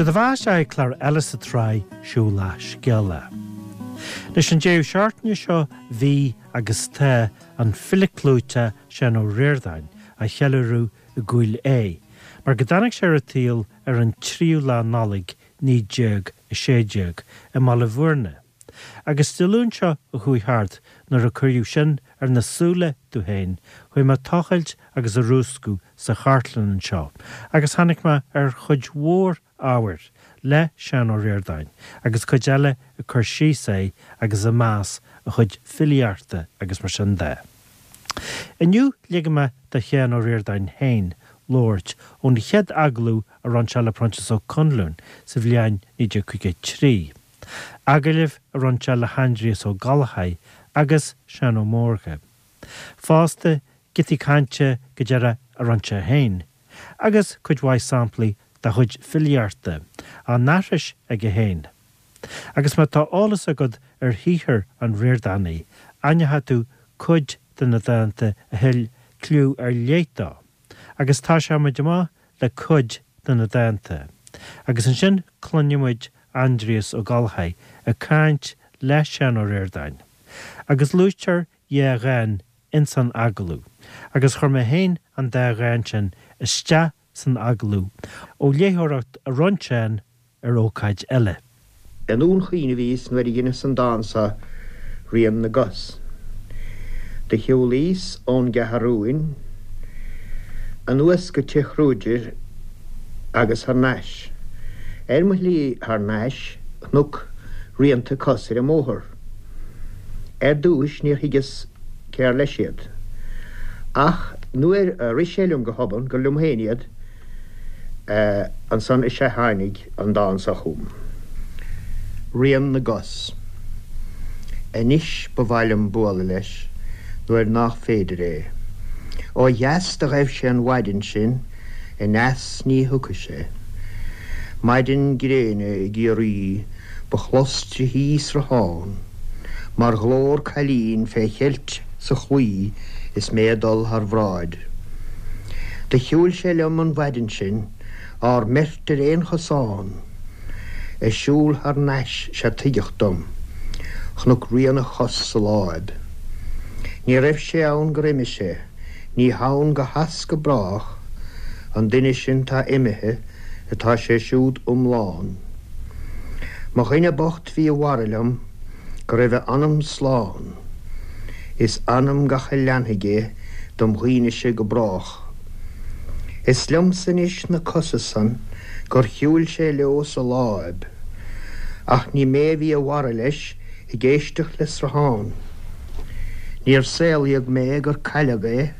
Sé do bheatha isteach ag clár eile sa tsraith Siúlach Scéalach. Anois an deireadh seachtaine seo bhí agus tá an file clúiteach Seán Ó Ríordáin á cheiliúradh i gCúil Aodha mar go dtáinig sé ar an tsaol ar an tríú lá Nollaig 1916 i mBaile Bhúirne. Agus Dé Luain seo a chuaigh thart nuair a cuireadh sin ar na súile domh féin, chuaigh mé ag tochailt agus ag rúscadh sa chartlann anseo agus tháinig mé ar chuid mhór ábhair le Seán Ó Ríordáin agus cuid eile ag cur síos air agus ag meas a chuid filíochta agus mar sin de. Inniu ligfidh mé do Sheán Ó Ríordáin féin labhairt ón chéad agallamh a rinne sé le Proinsias Ó Conluain sa bhliain 1953. Agallamh a rinne sé le hAindrias Ó Gallchóir agus Seán Ó Mórdha. Fosta, giotaí cainte go deireadh a rinne sé féin, agus cuid mhaith samplaí dá chuid filíochta, á n-aithris aige féin. Agus má tá eolas agat ar shaothar an Ríordánaigh, aithneoidh tú cuid de na dánta a thuill cliú ar leith dó. Agus tosóidh muid amach le cuid de na dánta. Agus ansin cluinfidh muid Aindrias Ó Gallchóir ag caint le Seán Ó Ríordáin. Agus luaitear dhá dhán ins an agallamh, agus chuir mé féin an dá dhán sin isteach san agallamh ó léitheoireacht a rinne Seán ar ócáid eile. I nDún Chaoin a bhíos nuair a dheineas an dán so, Rian na gCos. Do shiúlaíos ón gCeathrúin anuas go Tigh Chruaidir agus thar n-ais. Ar mo shlí thar n-ais chnuc rianta cos ar an mbóthar. Ar dtúis níor thuigeas cér leis iad. Ach nuair a rith sé liom go hobann gur liom féin iad, Ansan is ea tháinig an dán so chugam. Rian na gcos. Anois ba mhaith liom bualadh leis nuair nách féidir é. Ó dheas do ghaibh sé an mhaidin sin, aneas ní thiocfaidh sé. Maidin gréine i gCiarraí ba chlos tríthi sruthán mar ghlór cailín fé cheilt sa chlaí is mé ag dul thar bhráid. Do shiúil sé liom an mhaidin sin, ár mbeirt ar aon chosán. Ag siúl thar n-ais 'sea tuigeadh dom, chonac rian a chos sa láib. Ní raibh sé ann gur imigh sé, ní hann go has go brách, an duine sin 'tá imithe, atá sé siúd iomlán. Mo dhuine bocht bhí i bhfara liom, go raibh a anam slán. Is anam gach a leanfaidh é dom dhaoinese go brách. Is liomsa anois na cosa san gur shiúil sé leo sa láib, ach ní mé a bhí i bhfara leis ag éisteacht le sruthán. Níor saolaíodh mé gur cailleadh é,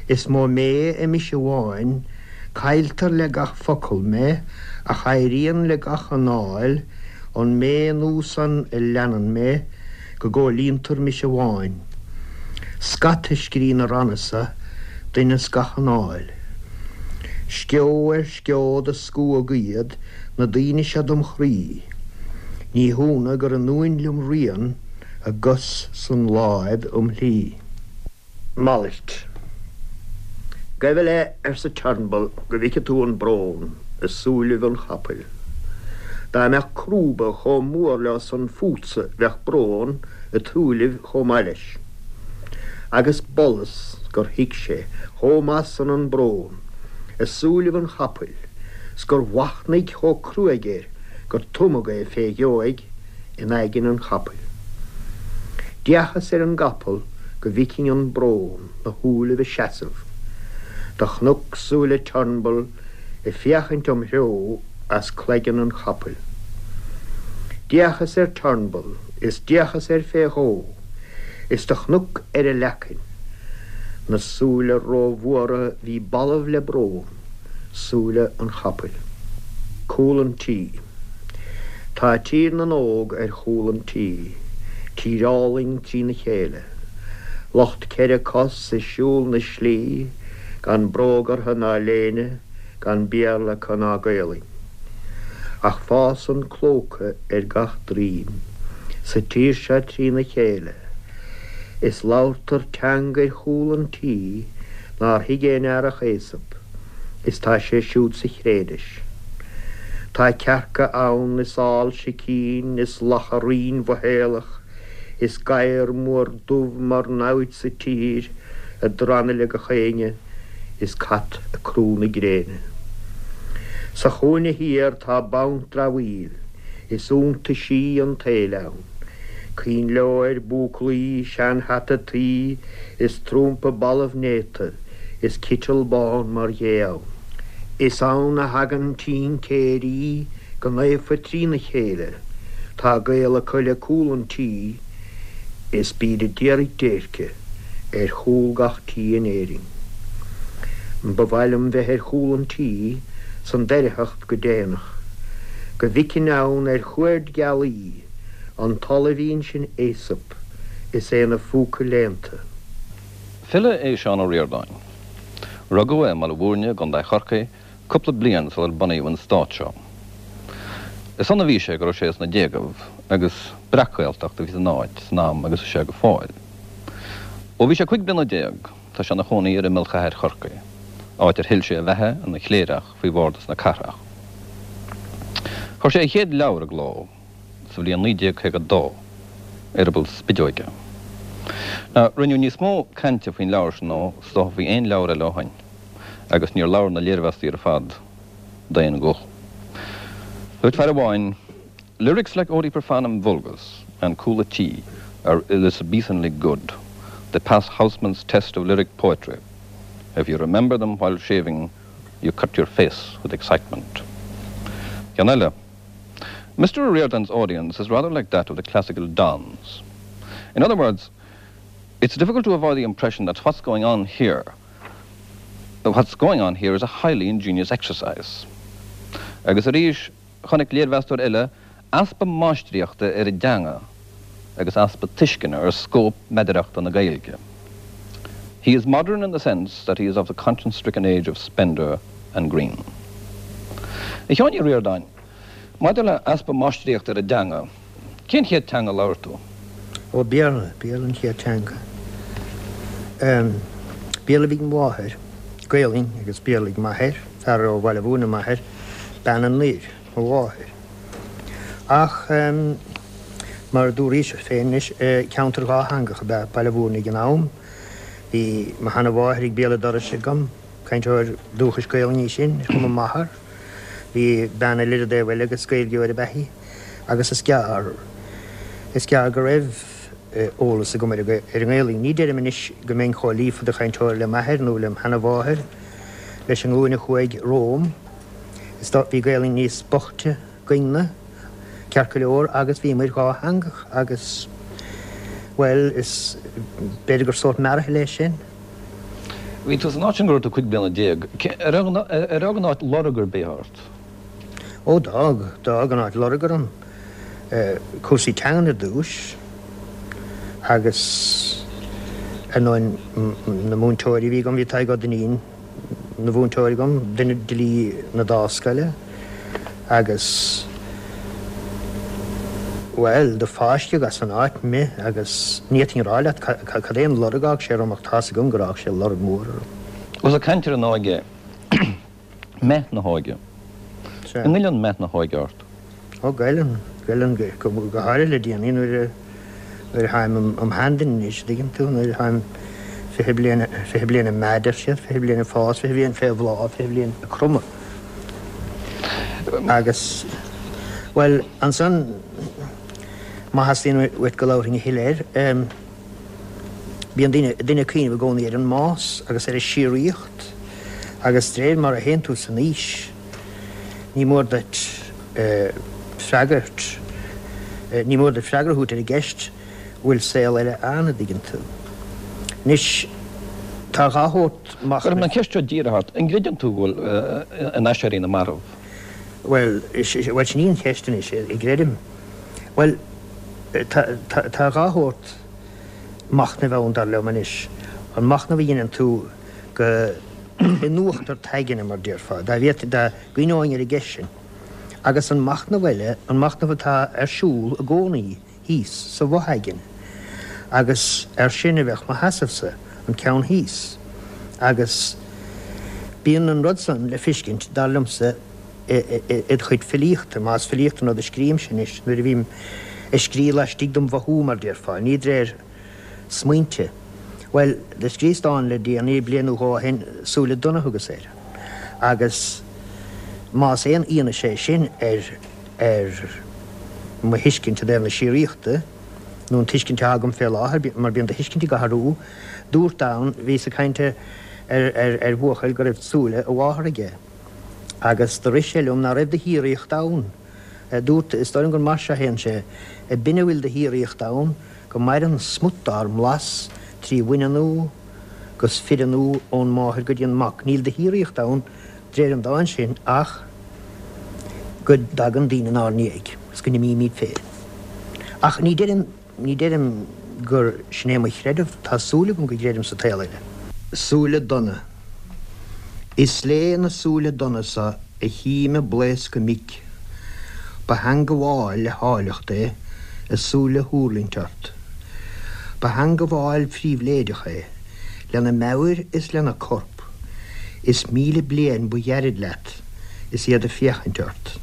is mó mé i mise amháin, cailltear le gach focal mé ach éiríonn le gach anáil, an mé nua san a leanann mé go gcomhlíontar mise amháin. Scata scrí na ranna so d'inneas gach anáil. Sceo ar sceo do scuadh iad na daoine seo dom chroí. Ní hionadh gur ionúin liom rian a gcos san láib um shlí. Malairt. Gabh i leith, arsa Turnbull, go bhfeice tú an brón i súilibh an chapaill. Dá mbeadh crúba chomh mór leo san fútsa bheadh brón i tsúilibh chomh maith leis. Agus b'fhollas gur thuig sé chomh maith san an brón i súilibh an chapaill 's gur mhachnaigh chomh cruaidh air gur tumadh é fé dheoidh in aigne an chapaill. D'fhéachas ar an gcapall go bhficinn an brón 'na shúilibh ag seasamh. Do chonac súile Turnbull ag féachaint im threo as cloigeann an chapaill. D'fhéachas ar Turnbull is d'fhéachas air fé dhó is do chonac ar a leacain na súile rómhóra bhí balbh le brón, súile an chapaill. Cúl an tí. Tá Tír na nÓg ar chúl an tí, tír álainn trína chéile. Lucht ceithre cos ag siúl na slí, gan bróg orthu ná léine, gan Béarla acu ná Gaolainn. Ach fásann clóca ar gach droim sa tír seo trína chéile, is labhartar teanga ar chúl an tí nár thuig aon fhear ach Aesop. is tá sé siúd sa chré anois. Tá cearca ann is ál sicín is lacha righin-mhothaolach is gadhar mór dubh mar namhaid sa tír ag drannadh le gach éinne is cat ag crú na gréine. Sa chúinne thiar tá banc dramhaíl is iontaisí an tsaoil ann, coinnleoir, búclaí, sean-hata tuí is trumpa balbh néata is citeal bán mar ghé ann. Is ann a thagann tincéirí go naofa trína chéile, tá gaol acu le cúl an tí is bíd a d'iarraidh déirce ar chúl gach tí in Éirinn. Ba mhaith liom bheith ar chúl an tí san doircheacht go déanach, go bhficfinn ann ar chuaird gealaí an t-olibhín sin Aesop is é 'na phúca léannta. File é Seán Ó Ríordáin. Rugadh é i mBaile Mhúirne i gContae Chorcaí cúpla bliain sular bunaíodh an stát seo. Is ann a bhí sé go raibh sé sna déagaibh agus breac-Ghaeltacht a bhí san áit san am agus is ea go fóill. Ó bhí sé 15 bliana tá sé ina chónaí ar imeall chathair Chorcaí, áit ar thuill sé a bheatha ina chléireach faoi Bhardas na Cathrach. Chuir sé a chéad leabhar i gcló sa bhliain 1952, Eireaball Spideoige. Now, rinneadh níos mó cainte faoin leabhar sin ná is dócha faoi aon leabhar eile ó shoin, agus níor labhair na léirmheastaí ar fad d'aon ghuth. Dúirt fear amháin, Lyrics like Odi Profanum Vulgus and Cúl a' Tí are Elizabethanly good. They pass Housman's test of lyric poetry. If you remember them while shaving, you cut your face with excitement. Ceann eile. Mr. O'Riordan's audience is rather like that of the classical dons. In other words, it's difficult to avoid the impression that what's going on here what's going on here is a highly ingenious exercise. Agus arís, chonaic léirmheastóir eile easpa máistríochta ar an dteanga agus easpa tuisceana ar scóip meadarachta na Gaeilge. He is modern in the sense that he is of the conscience-stricken age of Spender and Greene. A Sheáin Uí Ríordáin, maidir le easpa máistríochta ar an dteanga, cén chéad teanga a labhair tú? Ó, Béarla, Béarla an chéad teanga. Béarla a bhí ag mo mháthair, Gaelainn agus Béarla ag m'athair, fear ó Bhaile Mhúirne m'athair, bean anoir, mo mháthair. Ach mar a dúraís féin anois, ceantar dhátheangach ab ea Baile Mhúirne ag an am. Bhí mo sheana-mháthair ag béal an dorais agam, cainteoir dúchais Gaelainne í sin, ar chuma m'athar. Bhí bean eile ar an dtaobh eile agus Gaeilgeoir ab ea í agus is gearr, is gearr go raibh eolas agam ar an nGaelainn. Ní deirim anois go mbeinn chomh líofa de chainteoir le m'athair nó lem sheana-mháthair, leis an nglúin a chuaigh romham. Is dóigh, bhí Gaelainn níos boichte againn-ne, ceart go leor, agus bhíomair dhátheangach agus, bhuel, is, b'fhéidir gur sórt mearathal é sin. Bhí tú san áit sin go raibh tú 15 bliana. Ar fhág an áit lorg ar bith ort? Ó, d'fhág, d'fhág an áit lorg orm. Cúrsaí teangan ar dtúis agus ar ndóigh na múinteoirí a bhí agam, bhí Tadhg Ó Duinnín, 'na mhúinteoir agam, duine d'fhilí na Dámhscoile, agus, bhuel, do fáisceadh as an áit mé agus ní fhéadfainn a rá leat cad é an lorg a fhág sé orm ach tá's agam gur fhág sé lorg mór orm. Ós ag caint ar an óige, meath na hóige. Sea. An ngoilleann meath na hóige ort? Ó, goilleann, goilleann, go háirithe le déanaí nuair a, nuair a tháim im sheanduine anois, an dtuigeann tú, nuair a tháim 20 bliain, 20 bliain ag meath, deir siad, 20 bliain ag fás, 20 bliain fé bhláth, 20 bliain ag cromadh. Agus, bhuel, ansan, má theastaíonn uait go labharfainn a thuilleadh air, Bíonn duine ag cuimhneamh i gcónaí ar an mbás agus ar an síoraíocht agus de réir mar a théann tú san aois, ní mór duit freagairt, ní mór duit freagra a thabhairt ar an gceist bhfuil saol eile ann, an dtuigeann tú. Anois, tá a dhá shórt machnaimh. Cuirfidh mé an cheist seo díreach ort, an gcreideann tú go bhfuil in aiséirí na marbh? Bhuel, bhuel sin í an cheist anois, an gcreidim? Bhuel, tá, tá a dhá shórt machnaimh ann, dar liom anois. An machnamh a dheineann tú go in uachtar t'aigne, mar déarfá, dá bhféadfainn, dá gcuimhneoinn ar an gceist sin. Agus an machnamh eile, an machnamh atá ar siúl i gcónaí thíos sa bhfo-aigne. Agus air sin a bheadh mo sheasamh-sa, an ceann thíos. Agus bíonn an rud san le feiscint, dar liomsa. id chuid filíochta, más filíocht an rud a scríobhaimse anois, nuair a bhím ag scríobh laistigh dom mhothú, mar déarfá, ní d'réir smaointe. Bhuel, do scríos dán le déanaí, bliain nó dhó ó shin, Súile Donna thugas air. Agus más aon fhianaise é sin ar ar mo thuiscint i dtaobh na síoraíochta, nó an tuiscint atá agam fé láthair, mar bíonn do thuiscint ag athrú, dúrt ann, bhíos ag caint ar ar ar bhuachaill go raibh súile a mháthar aige. Agus do rith sé liom ná raibh de shíoraíocht ann. Dúrt, is dóigh liom gur mar seo a théann sé, B'in a bhfuil de shíoraíocht ann, go maireann smut dár mblas trí bhaineannú 'gus fireannú ón máthair go dtí an mac. Níl de shíoraíocht ann, d'réir an dáin sin, ach go dtagann daoine inár ndiaidh is go n-imímid féin. Ach ní deirim, ní deirim gur sin é mo chreideamh, tá súil agam go gcreidim sa tsaol eile. Súile donna. Is lé na súile donna so a chím ag blaoscadh mic. Ba theangabháil le háilleacht é a súile thuirlingt ort. Ba theangabháil phríbhléideach é, lena meabhair is lena corp, is 1000 bliain ba ghairid leat is iad ag féachaint ort.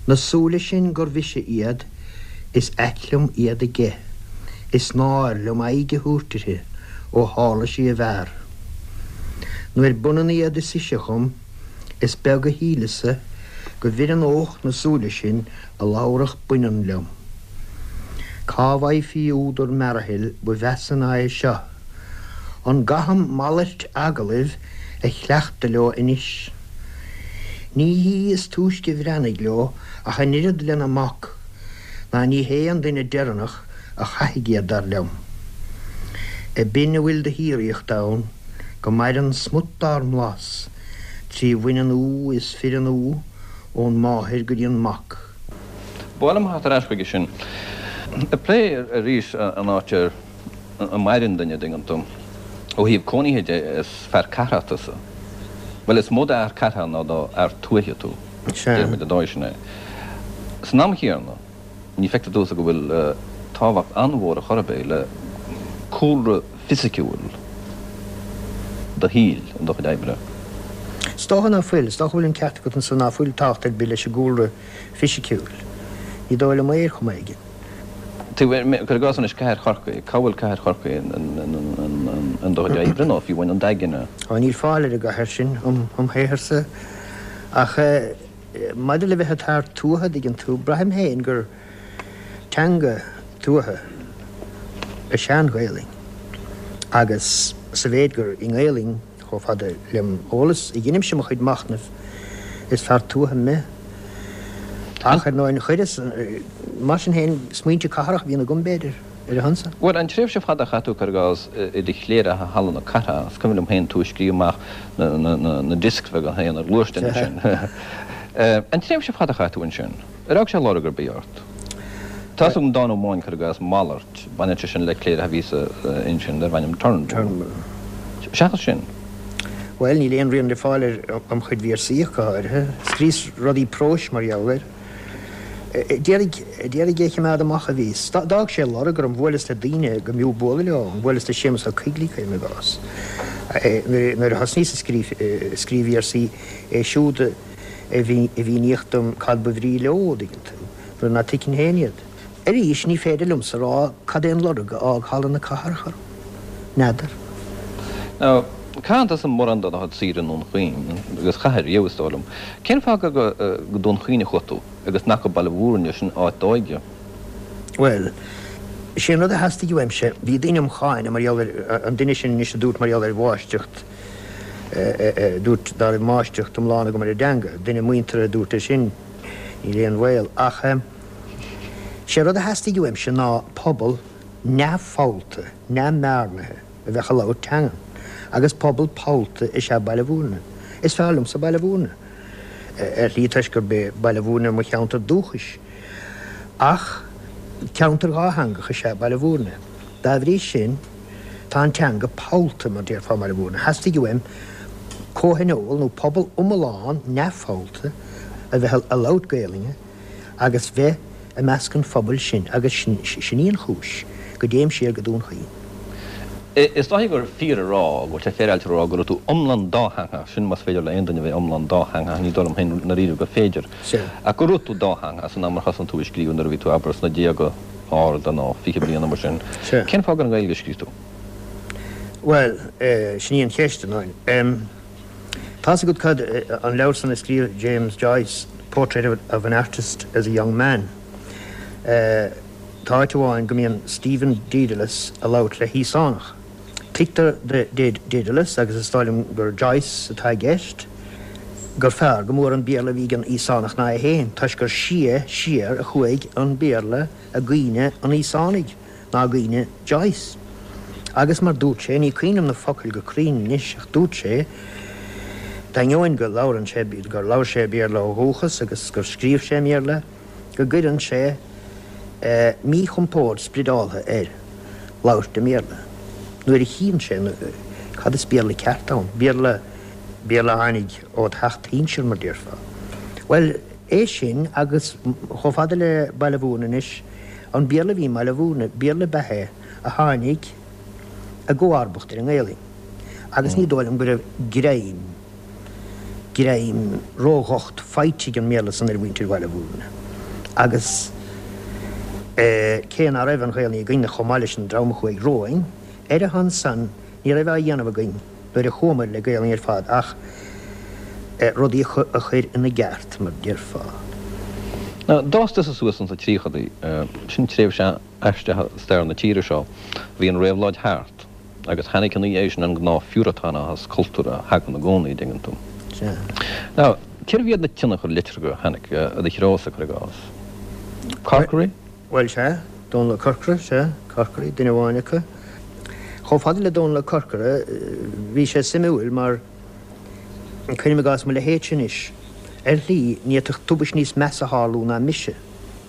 Na súile sin gur mhise iad is ait liom iad aige, is náir liom aghaidh a thabhairt uirthi ó tharla sí i bhfear. Nuair b'ionann iad is ise dhom, Is beag a shíleas-sa go bhfireannódh na súile sin a labharfadh baineann liom. Cá bhfaighfí údar mearathaill ba mheasa ná é seo? An gcaithim malairt agallaimh a chleachtadh leo anois? Ní hí is túisce bhreathnaigh leo ach an oiread lena mac, ná ní hé an duine deireanach a chaithfidh iad, dar liom. B'in a bhfuil de shíoraíocht ann, go maireann smut dár mblas trí bhaineannú is fireannú ón máthair go dtí an mac. Ba mhaith liom theacht ar ais chuige sin. Ag plé arís an áit ar a maireann duine, an dtuigeann tú. Ó thaobh cónaithe de, is fear cathrach tusa. Bhuel, is mó d'fhear cathrach ná d'fhear tuaithe tú. Déarfaimid an dóigh sin é. San am chéanna. Ní feictear domhsa go bhfuil tábhacht an-mhór ar chor ar bith le cúlra fisiciúil do shaoil in do chuid oibre. Is dócha ná fuil. Is dócha go bhfuil an ceart agat ansan ná fuil tábhacht ar bith leis an gcúlra fisiciúil. Ní dóigh liom é ar chuma éigin. Cuir i gcás anois cathair Chorcaí, cá bhfuil cathair Chorcaí in do chuid oibre nó fiú amháin in d'aigne? Á, níl fáil ar an gcathair sin im shaotharsa ach. Maidir le bheith id fhear tuaithe, dtuigeann tú, braithim féin gur teanga tuaithe is ea an Ghaelainn agus sa mhéid gur i nGaelainn, chomh fada lem eolas, a dheinimse mo chuid machnaimh, is fear tuaithe me. Ach, ar ndóigh, chuireas, mar sin féin, smaointe cathrach a bhíonn agam, b'fhéidir. ar a shon san. Bhuel, an tréimhse fada a chaith tú, cuir i gcás, i do chléireach i Halla na Cathrach, is cuimhin liom féin tú ag scríobh amach na discs bheaga féin ar ghluaisteán ansin. An tréimhse fada a chaith tú ansin, ar fhág sé lorg ar bith ort? Tá's agam dán amháin, cuir i gcás, Malairt, baineann sé sin le cléireach a bhí sa ansin darbh ainm Turnbull. Seachas sin. Bhuel, níl aon rian le fáil air im chuid véarsaí ach go háirithe. Scríos rudaí próis mar gheall air. D'iarraidh é a chimeád amach a bhíos. D'fhág sé lorg orm, bhuaileas le daoine go mb'fhiú bualadh leo, bhuaileas le Séamus Ó Coigligh, cuirim i gcás. Nuair a thosnaíos ag scríobh véarsaí, é siúd a mhíníodh dom cad ba bhrí leo, an dtuigeann tú, nuair ná tuigfinn féin iad. Arís, ní féidir liomsa a rá cad é an lorg a fhág Halla na Cathrach orm. N'fheadar. Now, caitheann tusa mórán de do chuid saoire i nDún Chaoin, agus chaith riamh, is dóigh liom. Cén fáth gur go Dún Chaoin a chuaigh tú, agus nach go Baile Mhúirne, sin áit d'óige? Bhuel, sé an rud a theastaigh uaimse, bhí daoine im cháineadh mar gheall ar, an duine sin anois a dúirt mar gheall ar mháistreacht, a dúirt dá raibh máistreacht iomlán agam ar an dteanga, duine muinteartha a dúirt é sin, níl aon bhaol, ach sé rud a theastaigh uaimse ná pobal neamhphollta, neamhbhearnaithe a bheadh ag labhairt teangan, agus pobal pollta is ea Baile Mhúirne. Is fearr liomsa Baile Mhúirne, ar shlí toisc gurb é Baile Mhúirne mo cheantar dúchais, ach ceantar dhátheangach is ea Baile Mhúirne. Dá bhrí sin, tá an teanga pollta, mar déarfá i mBaile Mhúirne. Theastaigh uaim comhthionól nó pobal iomlán neamhphollta a bheith ag labhairt Gaelainne, agus bheith i measc an phobail sin agus sin í an chúis go dtéim siar go Dún Chaoin. Is dóichí gur fíor a rá, go bhfuil sé féaráilte a rá, go raibh tú iomlán dátheangach, sin más féidir le aon duine a bheith iomlán dátheangach, ní dóigh liom féin ndáiríre gur féidir, ach go raibh tú dátheangach san am ar thosnaigh tú ag scríobh nuair a bhí tú, abair, sna déaga arda nó 20 bliain nó mar sin. Cén fáth gur i nGaeilge a scríobh tú? Bhuel, sin í an cheist, a Niall. Tá's agat cad, an leabhar san a scríobh James Joyce, Portrait of an Artist as a Young Man. Tá áit amháin go mbíonn Stephen Dedalus a labhairt le hÍosánach. Tuigtear do Dedalus, agus is dóigh liom gur Joyce atá i gceist, gur fearr go mór an Béarla a bhí ag an Íosánach ná é féin, toisc gur sia siar a chuaigh an Béarla i gcuimhne an Íosánaigh ná i gcuimhne Joyce. Agus mar dúirt sé, ní cuimhin liom na focail go cruinn anois, ach dúirt sé, d'ainneoin go labhrann sé, gur labhair sé Béarla ó dhúchas agus gur scríobh sé i mBéarla, go gcuireann sé míchompord spriodáltha air labhairt i mBéarla nuair a chíonn sé cad is Béarla ceart ann, Béarla, Béarla a tháinig ó theach do shinsir, mar déarfá. Bhuel, é sin agus chomh fada le Baile Mhúirne anois, an Béarla a bhí i mBaile Mhúirne, Béarla ab ea é a tháinig i gcomharbacht ar an nGaelainn agus ní dóigh liom go raibh greim, greim ródhocht faighte ag an mBéarla san ar mhuintir Bhaile Mhúirne agus cé ná raibh an Ghaelainn againne chomh maith leis an dream a chuaigh romhainn, ar a shon san ní raibh á dhéanamh againn nuair a chuamair le Gaelainn ar fad ach rudaí a chur ina gceart, mar déarfá. Now, d'fhás tusa suas ins na tríochadaí, sin tréimhse aisteach i stair na tíre seo, bhí an réabhlóid thart. Agus tháinig ina dhiaidh sin an gnáth-phiúratánachas cultúrtha a thagann i gcónaí, an dtuigeann tú. Sea. Now, cérbh iad na tionchair liteartha a tháinig i do threosa, cuir i gcás? Corkery? Bhuel, sea. Dónall Ó Corcora, sea. Corkery, duine amháin acu. Chomh fada le Dónall Ó Corcora, bhí sé suimiúil mar, cuirim i gcás, mo leithéidse anois, ar shlí, ní fhéadfadh tubaist níos measa tharlú ná mise,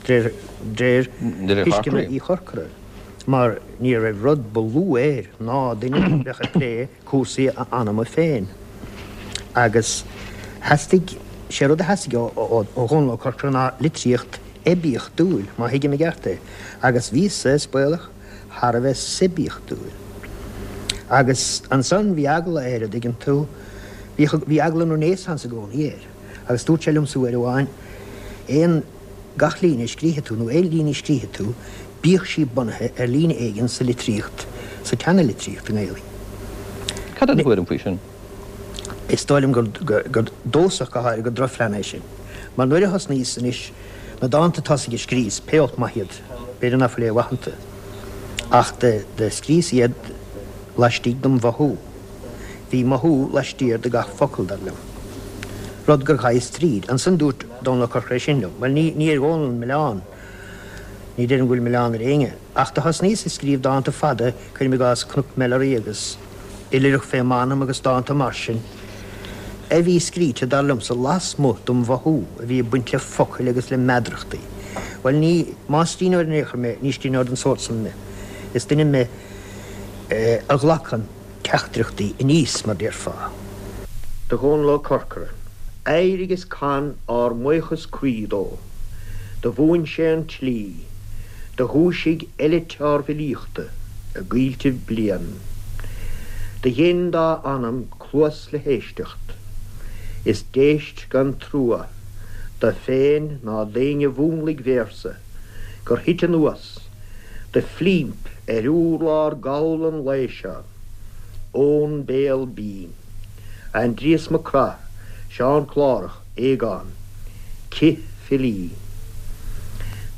de réir thuisceana Uí Chorcora. mar ní raibh rud ba lú air ná duine a bheadh ag plé cúrsaí a anama féin. Agus theastaigh, sé rud a theastaigh ó Dhónall Ó Corcora ná litríocht oibiachtúil, má thuigim i gceart é, agus bhíos-sa, is baolach, thar a bheith suibiachtúil. Agus ansan bhí eagla air, a dtuigeann tú, bhí eagla an Renaissance i gcónaí air, agus dúirt sé liomsa uair amháin, aon. Gach líne a scríobhfaidh tú, nó aon líne a scríobhfaidh tú, bíodh sí bunaithe ar líne éigin sa litríocht, sa tseana-litríocht i nGaelainn. Cad é do thuairim faoi sin? Is dóigh liom gur domhsa ach go háirithe, gur drochphlean é sin. Mar nuair a thosnaíos anois, na dánta tosaigh a scríos, pé olc maith iad, b'fhéidir ná fuil aon mhaith iontu, ach do scríos iad laistigh dom mhothú. Bhí mothú laistiar de gach focal, dar liom. Rud gur ghabhas tríd. Ansan dúirt Dónall Ó Corcora é sin liom. Bhuel, ní, ní ar Dhónall an milleán. Ní deirim go bhfuil milleán ar éinne. Ach do thosnaíos ag scríobh dánta fada, cuirim i gcás Cnoc Melleray agus Oilithreach fé m'Anam agus dánta mar sin, a bhí scríte, dar liomsa, lasmuigh dom mhothú, a bhí ag baint le focail agus le meadarachtaí. Bhuel, ní, más scríbhneoir in aon chor mé, ní scríbhneoir den sórt san mé. Is duine mé a ghlacann teachtaireachtaí aníos, mar déarfá. Do Dhónall Ó Corcora. Éirigh is can ár mbuíochas croí dó. Do mhúin sé an tslí. Do dhúisigh eilit ár bhfilíochta i gcoilltibh blian. Do dhein dá anam cluas le héisteacht. Is d'éist gan trua do féin ná d'éinne mhúnlaigh véarsa gur thit anuas de phlimp ar urlár gall an lae seo ón béal binn. Aindrias Mac Craith, Seán Clárach, Aogán, Cith Filí.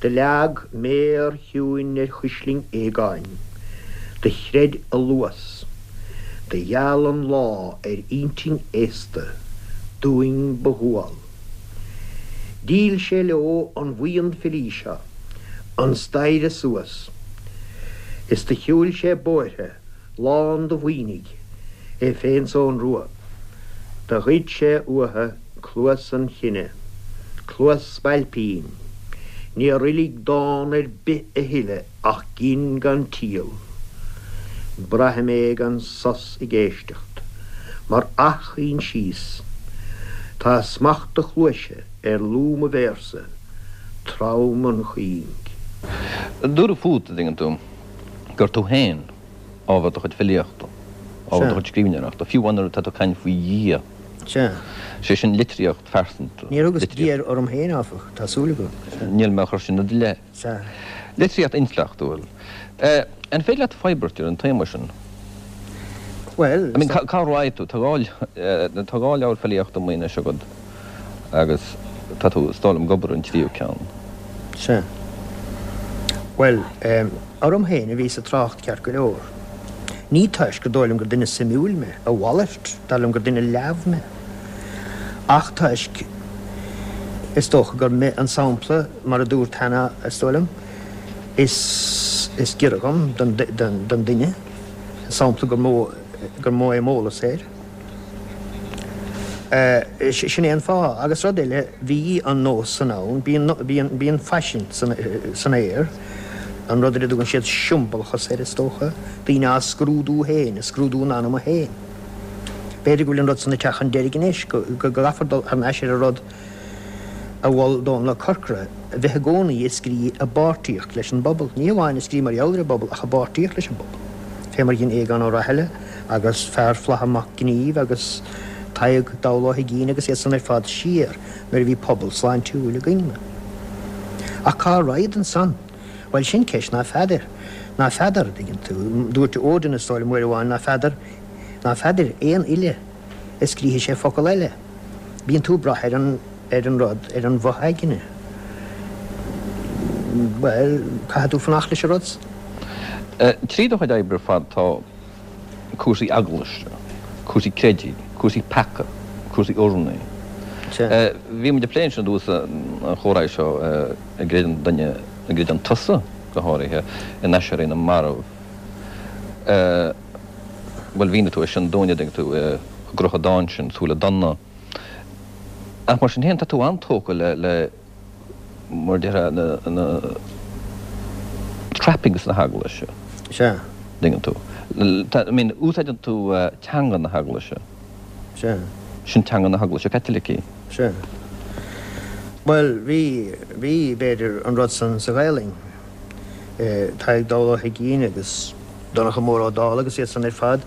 Do leag méar chiúin ar chuislinn Aogáin, do chreid a luas, do gheal an lá ar intinn aosta dúinn ba dhual. Dhíol sé leo an bhuíon filí seo an staighre suas is do shiúil sé bóithre lán de mhaoinigh, é féin 's Eoghan Rua. Do ghoid sé uathu cluas an chine, cluas spailpín. Níor fhoiligh dán ar bith a thuilleadh ach gin gan triall. Braithim é gan sos ag éisteacht, mar athchoinsias. Tá smacht do chluaise ar lúth mo véarsa, trom an chuing. Dúradh fút, a dtuigeann tú, gur tú féin. ábhar do chuid filíochta, ábhar do chuid scríbhneoireachta, fiú amháin nuair atá tú ag caint faoi Dhia. Sea. Sé sin litríocht phearsanta. Níor thugas Dia orm féin, áfach, tá súil agam. Níl mé á chur sin i do leith. Sea. Litríocht intleachtúil. An féidir leat forbairt ar an téama sin? Bhuel, I mean, cá raghaidh tú? Tá tá dhá leabhar filíochta amuigh anois agat agus tá tú, is dóigh liom, ag obair ar an tríú ceann. Sea. Bhuel, orm féin a bhíos ag trácht ceart go leor. Ní toisc gur dóigh liom gur duine suimiúil mé, a mhalairt, dar liom gur duine leamh mé. Ach toisc, is dócha gur mé an sampla, mar a dúrt cheana, is dóigh liom, is is giorra dhom, don don duine, an sampla gur mó gur mó é m'eolas air. Sin é an fáth. Agus rud eile, bhí an nós san ann, bíonn, bíonn, bíonn faisean san, san aer, an rud ar a dtugann siad siombalachas air, is dócha, daoine á scrúdú féin, ag scrúdú a n-anama féin. B'fhéidir go bhfuil an rud san ag teacht chun deiridh anois, go, go gcaithfear dul thar n-ais ar an rud a mhol Dónal Ó Corcora, a bheith i gcónaí ag scrí i bpáirtíocht leis an bpobal, ní hamháin ag scrí mar gheall ar an bpobal ach i bpáirtíocht leis an bpobal, fé mar a dhein Aogán Ó Rathaille agus Fear Flatha Mac Gnímh agus Tadhg Dall Ó hUigínn agus iad san ar fad siar nuair a bhí pobal sláintiúil againn. Ach cá raghad ansan? Bhuel, sin ceist ná feadar. Ná feadar, an dtuigeann tú. Dúirt Odin, is dóigh liom, uair amháin, ná feadar, ná feadair aon fhile a scríobhfaidh sé focal eile. Bíonn tú ag brath ar an, ar an rud, ar an bhfo-aigne. Bhuel, caithfidh tú fanacht leis an rud san. Trí do chuid oibre ar fad tá cúrsaí eaglaise, cúrsaí creidimh, cúrsaí peaca, cúrsaí urnaí. Sea. Bhí muid ag plé ansin i dtús an chomhrá seo, an gcreideann duine, an gcreideann tusa go háirithe, in aiséirí na marbh. Bhuel, mhínigh tú é sin dúinn, a dtuigeann tú, i gcruth an dáin sin, Súile Donna. Ach mar sin féin, tá tú an-tógtha le, le, mar a déarfá, na, na trappings na heaglaise. Sea. Dtuigeann tú. Tá, I mean, úsáideann tú teanga na heaglaise. Sea. Sin teanga na heaglaise Caitlicí. Sea. Bhuel, bhí, bhí, b'fhéidir, an rud san sa Ghaelainn. Tadhg Dall Ó hUigínn agus Donncha Mór Ó Dálaigh agus iad san ar fad,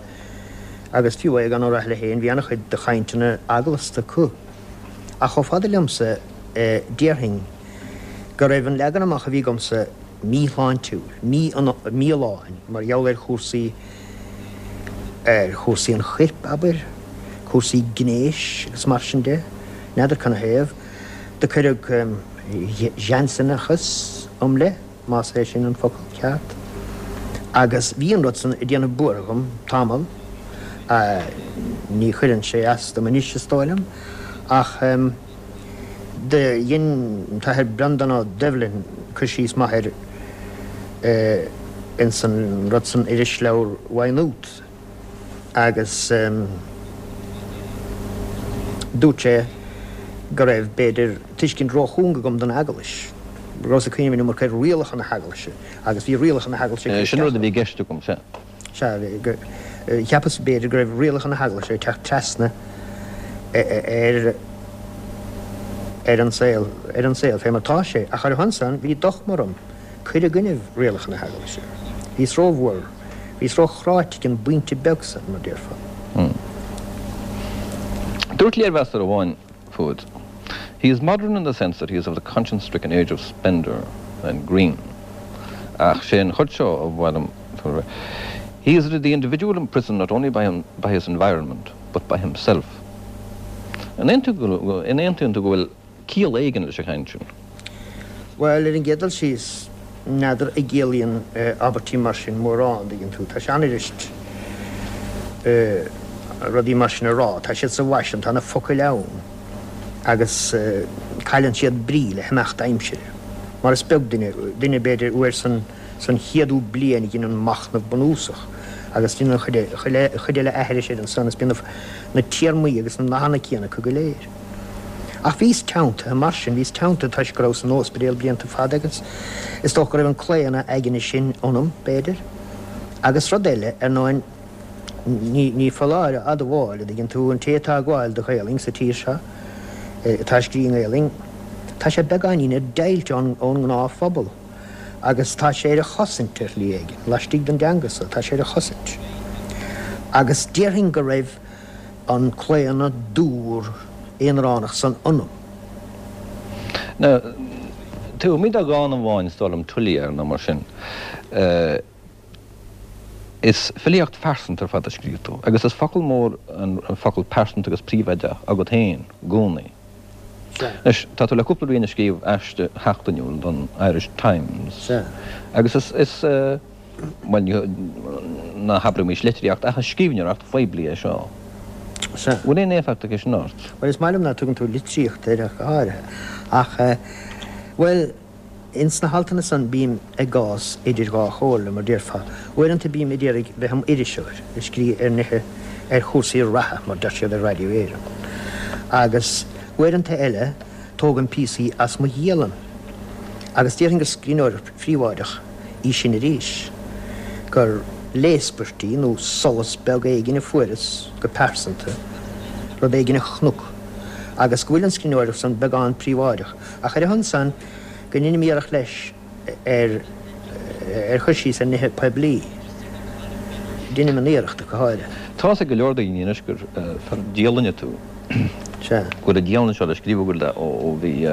agus fiú Aogán Ó Rathaille féin, bhí an-chuid de chainteanna eaglasta acu. Ach chomh fada liomsa, déarfainn go raibh an leagan amach a bhí agamsa míshláintiúil, mífholláin, mar gheall ar chúrsaí, ar chúrsaí an choirp, abair, cúrsaí gnéis agus mar sin de. N'fheadar canathaobh. Do cuireadh Jansenachas im leith, más é sin an focal ceart, agus bhí an rud san ag déanamh buartha dhom tamall. Ní chuireann sé as dom anois, is dóigh liom, ach do dhein an tAthair Breandán Ó Doibhlin cur síos maith air ins an rud san Irisleabhar Mhaigh Nuad. agus dúirt sé go raibh, b'fhéidir, tuiscint róchúng agam don Eaglais, go rabhas ag cuimhneamh an iomarca ar rialacha na hEaglaise agus bhí rialacha na hEaglaise ag cur Sin isteach rud a bhí i gceist agam, sea. Sea, cheapas, b'fhéidir, go raibh rialacha na hEaglaise ag teacht trasna ar ar an saol, ar an saol fé mar tá sé, ach ar a shon san bhí dochma orm cur i gcoinnibh rialacha na hEaglaise. Bhíos rómhór. Bhíos róchráite ag an bpointe beag san, mar déarfá. Dúirt léirmheastóir amháin fút, He is modern in the sense that he is of the conscience-stricken age of Spender and Green. Ach sé an chuid seo a mhaith liom, He is the individual imprisoned not only by by his environment, but by himself. An aontaíonn tú go bhfuil ciall éigin leis an chaint sin. Bhuel, ar an gcéad dul síos, n'fheadar an gciallaíonn abairtí mar sin mórán, an dtuigeann tú. Tá sé an-fhuirist rudaí mar sin a rá, tá siad sa bhfaisean, tá na focail ann agus cailleann siad brí le himeacht aimsire. Mar is beag duine, duine b'fhéidir uair san, san chéadú bliain a dheineann machnamh bunúsach agus déanann an chuid eile aithris air ansan is bíonn na téarmaí agus na nathanna céanna acu go léir. Ach bhíos teanntaithe mar sin, bhíos teanntaithe toisc go rabhas san ospidéal blianta fada agus is dócha go raibh an claonadh aigne sin ionam, b'fhéidir. Agus rud eile, ar ndóin, ní, ní foláir a admháil, a dtuigeann tú, an té atá ag gabháil do Ghaelainn sa tír seo, atá ag scrí i nGaelainn, tá sé beagáinín ar deighilt ón, ón ngnáthphobal. Agus tá sé ar a chosaint ar shlí éigin, laistigh den dteanga so, tá sé ar a chosaint. Agus déarfainn go raibh an claonadh dúr aonaránach san ionam. Now, taobh amuigh de dhán amháin, is dóigh liom, Tuliar nó mar sin, is filíocht phearsanta ar fad a scríobh tú, agus is focal mór an focal pearsanta agus príobháideach agat féin i gcónaí. Sea. Anois, tá tú le cúpla bliain ag scríobh aiste sheachtainiúil don Irish Times. Sea. Agus is, is, bhuel, ní, ná habraimis litríocht ach is scríbhneoireacht phoiblí é seo. Sea. Bhfuil aon éifeacht aige sin ort? Bhuel, is maith liom ná tugann tú litríocht air ach go háirithe. Ach, bhuel, Ins na haltanna san bím i gcás idir dhá chomhairle, mar déarfá. Uaireanta bím ag iarraidh bheith im iriseoir, ag scríobh ar nithe, ar chúrsaí reatha, mar deir siad ar Raidió Éireann. Agus uaireanta eile tógaim píosaí as mo dhialann. Agus déarfainn gur scríbhneoireacht phríobháideach í sin arís, gur léaspairtí nó solas beag éigin a fuaireas go pearsanta, rud éigin a chonac, agus go bhfuil an scríbhneoireacht san beagán príobháideach. Ach ar a shon san, go ndeinim iarracht leis ar ar chur síos ar nithe poiblí. Deinim an iarracht, ach go háirithe. Tá's ag go leor daoine anois gur fear dialainne tú. Sea. Go bhfuil an dialann seo le scríobh agat ó bhí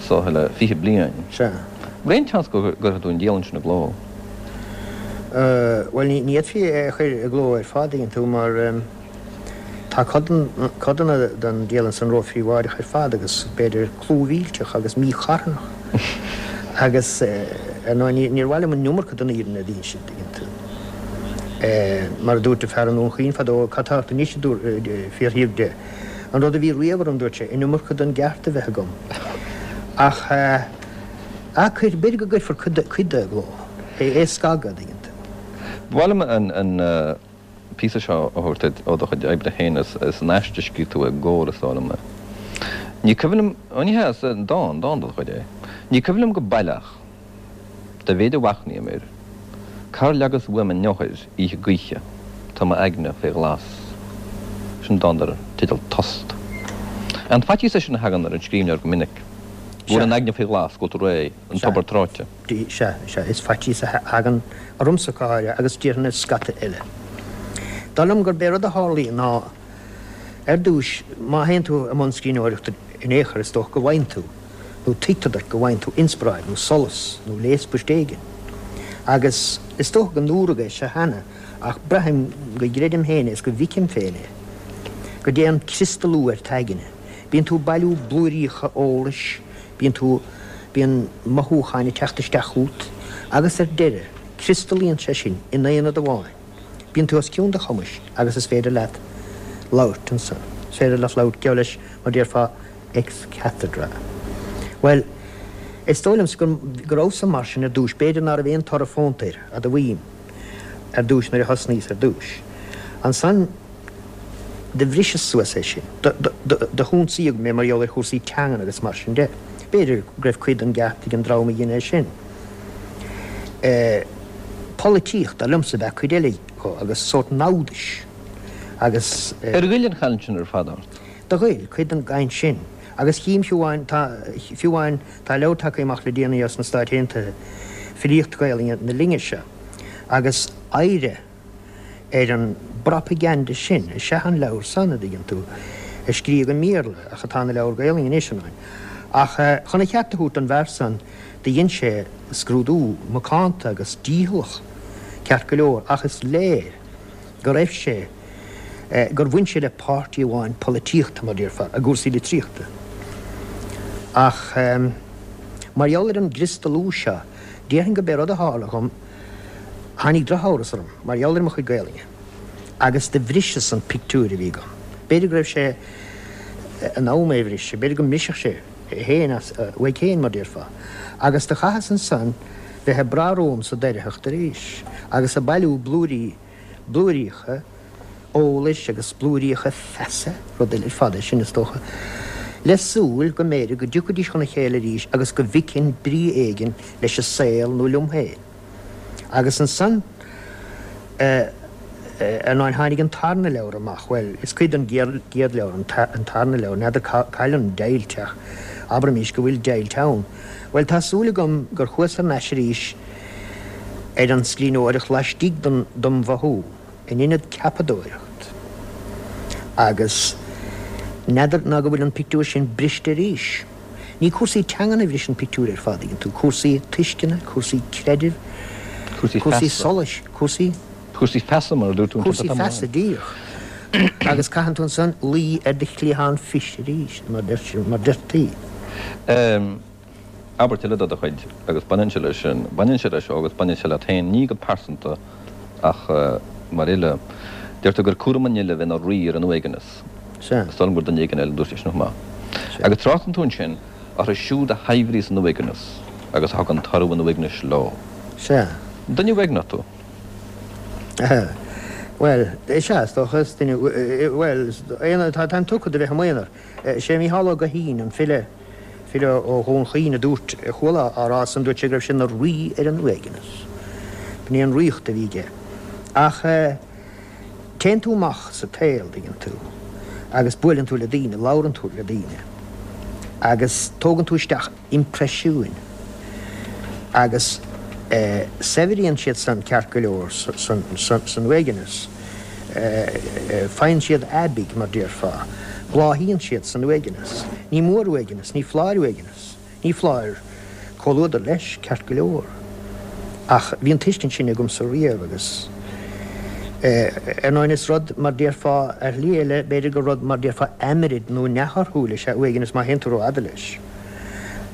saoth le 20 bliain. Sea. Bhfuil aon tseans go gcuirfidh tú an dialann sin i gcló? Bhuel, ní fhéadfaí é a chur i gcló ar fad, tuigeann tú, mar. Tá codanna den dialann san róphríobháideach ar fad agus b'fhéidir clúmhillteach agus mícharthanach agus ar ndóigh níor mhaith liom an iomarca den fhírinne a dh'insint, tuigeann tú. Mar a dúirt fear i nDún Chaoin fadó, cad tá ort anois a fiafraíodh de. An rud a bhí riamh orm, dúirt sé, an iomarca den gceart a bheith agam. Ach ah, b'fhéidir go gcuirfear cuid de i gcló, é a scagadh, tuigeann tú. Ba mhaith liom an. píosa seo a thabhairt duit ó do chuid oibre féin. Is in aiste a scríobh tú i gComhar, is dóigh liom é. Ní cuimhin liom, ó ní hea, is dán, dán de do chuid é. Ní cuimhin liom go baileach, dá mhéid a mhachnaím air, cár leagas uaim an eochair oíche gaoithe, tá m'aigne fé ghlas. Sin dán dar teideal Tost. An faitíos é sin a thagann ar an scríbhneoir go minic, go bhfuil an aigne faoi ghlas, go bhfuil tú réidh, an tobar tráite. Sea, sea, is faitíos a thagann ormsa go háirithe agus déarfainn ar scata eile. Dar liom gurb é rud a tharlaíonn ná, ar dtúis, má théann tú i mbun scríbhneoireachta in aon chor, is dócha go bhfaigheann tú, nó tuigtear duit go bhfaigheann tú inspioráid nó solas nó léaspairt éigin. Agus is dócha go ndúradh é seo cheana ach braithim go gcreidim féin é is go bhficim féin é, go dtéann criostalú ar t'aigne. Bíonn tú ag bailiú blúiríocha eolais, Bíonn tú, bíonn mothúcháin ag teacht isteach chugat agus ar deireadh, criostalaíonn sé sin in aonad amháin. Bíonn tú os cionn do chumais agus is féidir leat labhairt ansan. Is féidir leat labhairt, geall leis, mar déarfá, ex cathedra. Bhuel, is dóigh liomsa go, go rabhas-sa mar sin ar dtúis. B'fhéidir ná raibh aon toradh fónta air, admhaím, ar dtúis nuair a thosnaíos ar dtúis. Ansan, Do bhriseas suas é sin. Do hionsaíodh mé mar gheall ar chúrsaí teangan agus mar sin de. B'fhéidir go raibh cuid den gceart ag an dream a dhein é sin. Polaitíocht, dar liomsa, ab ea cuid eile dho agus sórt namhdais agus. Ar ghoill an chaint sin ar fad ort? Do ghoill, cuid den gcaint sin. Agus chím fiú amháin, tá, fiú amháin, tá leabhar tagtha amach le déanaí as na Stáit Aontaithe, Filíocht Ghaelainne na linne seo, agus oidhre, ar an bpropagandah sin is ea an leabhar san, a dtuigeann tú, a scríodh i mBéarla, ach atá ina leabhar Gaelainne anois, ar ndóigh. Ach chun a cheart a thabhairt don bhfear san, do dhein sé scrúdú macánta agus dícheallach, ceart go leor, ach is léir go raibh sé, gur bhain sé le páirtí amháin polaitíochta, mar déarfá, i gcúrsaí litríochta. Ach mar gheall ar an gcriostalú seo, déarfainn go b'é rud a tharla dhom, Tháinig drochamhras orm mar gheall ar mo chuid Gaelainne agus do bhriseas an pictiúr a bhí agam. B'fhéidir go raibh sé in am é a bhriseadh, b'fhéidir go mbrisfeadh sé é féin as uaidh féin, mar déarfá. Agus do chaitheas ansan bheith ag brath romham sa doircheacht arís agus ag bailiú blúirí, blúiríocha eolais agus blúiríocha feasa, rud eile ar fad é sin, is dócha, le súil go mb'fhéidir go dtiocfaidís chun a chéile arís agus go bhficfinn brí éigin leis an saol nó liom féin. Agus ansan, ar ndóigh, tháinig an tarna leabhar amach, bhuel, is cuid den gcéad leabhar an tarna leabhar, n'fheadar cá, cá bhfuil an deighilt ach. Abraimis go bhfuil deighilt ann. Bhuel, tá súil agam gur chuas thar n-ais arís ar an scríbhneoireacht laistigh dom mhothú, in ionad ceapadóireacht. Agus n'fheadar ná go bhfuil an pictiúr sin briste arís. Ní cúrsaí teangan a bhris an pictiúr ar fad, tuigeann tú, cúrsaí tuisceana, cúrsaí creidimh, cúrsaí solais, cúrsaí. Cúrsaí feasa, mar a dúirt tú ansin. Cúrsaí feasa, díreach. Agus caitheann tú ansan luí ar do chliathán fios arís, mar deirtí. Abairt eile de do chuid, agus baineann sé leis sin, baineann sé leis seo agus baineann sé leat féin, ní go pearsanta ach mar fhile. Deir tú gur cúram an fhile bheith ina rí ar an uaigneas. Sea. Is dóigh liom gur duine éigin eile a dúirt é sin chomh maith. Agus tráchtann tú ansin orthu siúd a shaibhríos an uaigneas agus a thugann toradh an uaignis leo. Sea. Duine uaigneach tú? Bhuel, sea, is dócha, is duine, bhuel, aonar, táim tugtha do bheith i m'aonar. Sé Mícheál Ó Guithín, an file, file ó Dhún Chaoin a dúirt, a chuala á rá san, dúirt sé go raibh sé ina rí ar an uaigneas. B'in é an ríocht a bhí aige. Ach téann tú amach sa tsaol, dtuigeann tú, agus buaileann tú le daoine, labhrann tú le daoine, agus tógann tú isteach impreisiúin agus saibhríonn siad san ceart go leor san uaigneas. Faigheann siad aibidh, mar déarfá. Bláthaíonn siad san uaigneas. Ní mór uaigneas, ní foláir uaigneas. Ní foláir comhluadar leis, ceart go leor. Ach bhí an tuiscint sin agamsa riamh agus, ar ndóigh, is rud, mar déarfá, ar shlí eile, b'fhéidir gur rud, mar déarfá, aimrid nó neamhthorthúil is ea uaigneas má théann tú rófhada leis.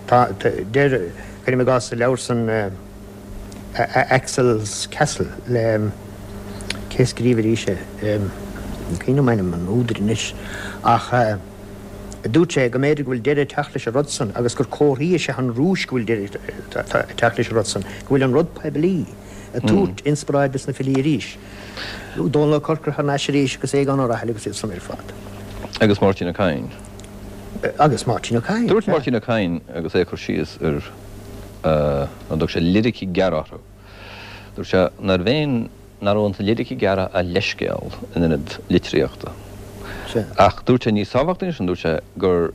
Tá, deir, cuirim i gcás sa leabhar san, Axel's Castle le, cé a scríobh arís é, ní cuimhin liom ainm an údair anois, ach dúirt sé go mb'fhéidir go bhfuil deireadh ag teacht leis an rud san agus gur comharthaí is ea an Rúis go bhfuil deireadh ag teacht leis an rud san, go bhfuil an rud poiblí ag tabhairt inspioráid dos na filí arís. Dónall Ó Corcora thar n-ais arís agus Aogán Ó Raghallaigh agus iad san ar fad. Agus Máirtín Ó Cadhain. Agus Máirtín Ó Cadhain, Dúirt Máirtín Ó Cadhain agus é ag cur síos ar, an dtug sé liricí gearra orthu, dúirt sé nárbh aon, nach raibh sna liricí gearra ach leithscéal in ionad litríochta. Ach dúirt sé níos tábhachtaí ná sin, dúirt sé gur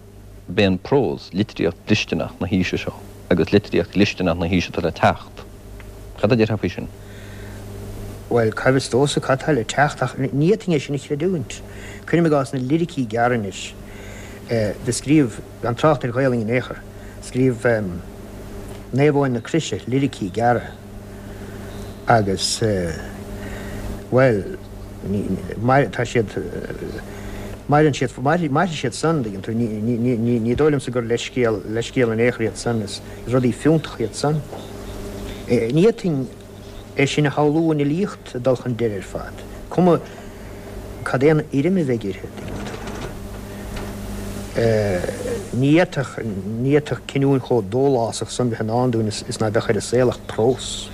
b'é an prós litríocht dhlisteanach na haoise seo agus litríocht dhlisteanach na haoise atá le teacht. Cad a déarfá faoi sin? Bhuel, cá bhfios domhsa cad tá le teacht ach ní fhéadfainn é sin a chreidiúint. Cuirim i gcás na liricí gearra anois. Do scríobh, gan trácht ar Ghaolainn in aon chor, scríobh Naomh Eoin na Croise liricí gearra agus, bhuel, ní, tá siad, maireann siad, mairfidh siad san, dtuigeann tú, ní, ní, ní, ní dóigh liomsa gur leithscéal, leithscéal in aon chor iad san, is rudaí fiúntacha iad san. Ní fhéadfainn é sin a shamhlú an fhilíocht ag dul chun deiridh ar fad, cuma cad é an fhoirm a bheidh uirthi, dtuigeann tú. Ní fhéadfadh, ní fhéadfadh cinniúint chomh dólásach san bheith i ndán dúinn is ná beadh ar an saol ach prós.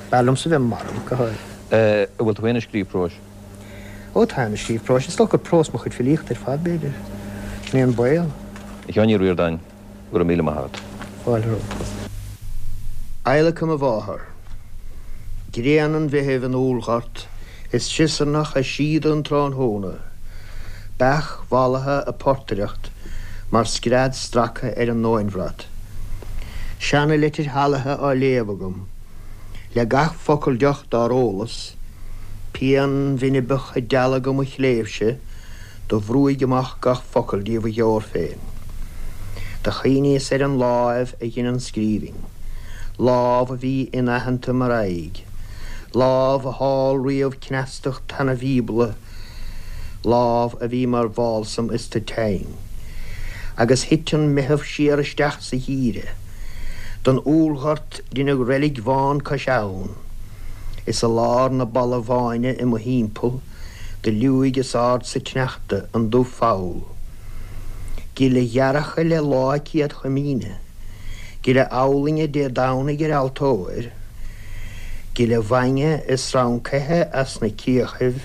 B'fhearr liomsa bheith marbh, go háirithe. An bhfuil tú féin ag scríobh próis? Ó, táim ag scríobh próis. Is dócha gur prós mo chuid filíochta ar fad, b'fhéidir. Sin é an baol. A Sheáin Uí Ríordáin, Go raibh míle maith agat. Fáilte romhat. Adhlacadh mo mháthar. Grian an Mheithimh in úllghort is siosarnach ag síoda an tráthnóna. Beach mhallaithe ag portaireacht mar scread stractha ar an nóinbhrat. Seana-leitir shalaithe á léamh agam. Le gach focal deoch dár ólas, pian bhinibeach ag dealgadh mo chléibhse, Do bhrúigh amach gach focal díobh a gheobhair féin. Do chuimhníos ar an láimh a dhein an scríbhinn, lámh a bhí inaitheanta mar aghaidh, lámh a thál riamh cneastacht tana Bhíobla, lámh a bhí mar bhálsam is tu teinn. Agus thit an Meitheamh siar isteach sa gheimhreadh. Don úllghort deineadh reilig bhán cois abhann, is i lár na balbh-bháine i mo thimpeall, Do liúigh is ard sa tsneachta an dubh-pholl. Gile ghearrtha le lá Céad Chomaoine, Gile abhlainne Dé Domhnaigh ar altóir, Gile bhainne is srancaithe as na cíochaibh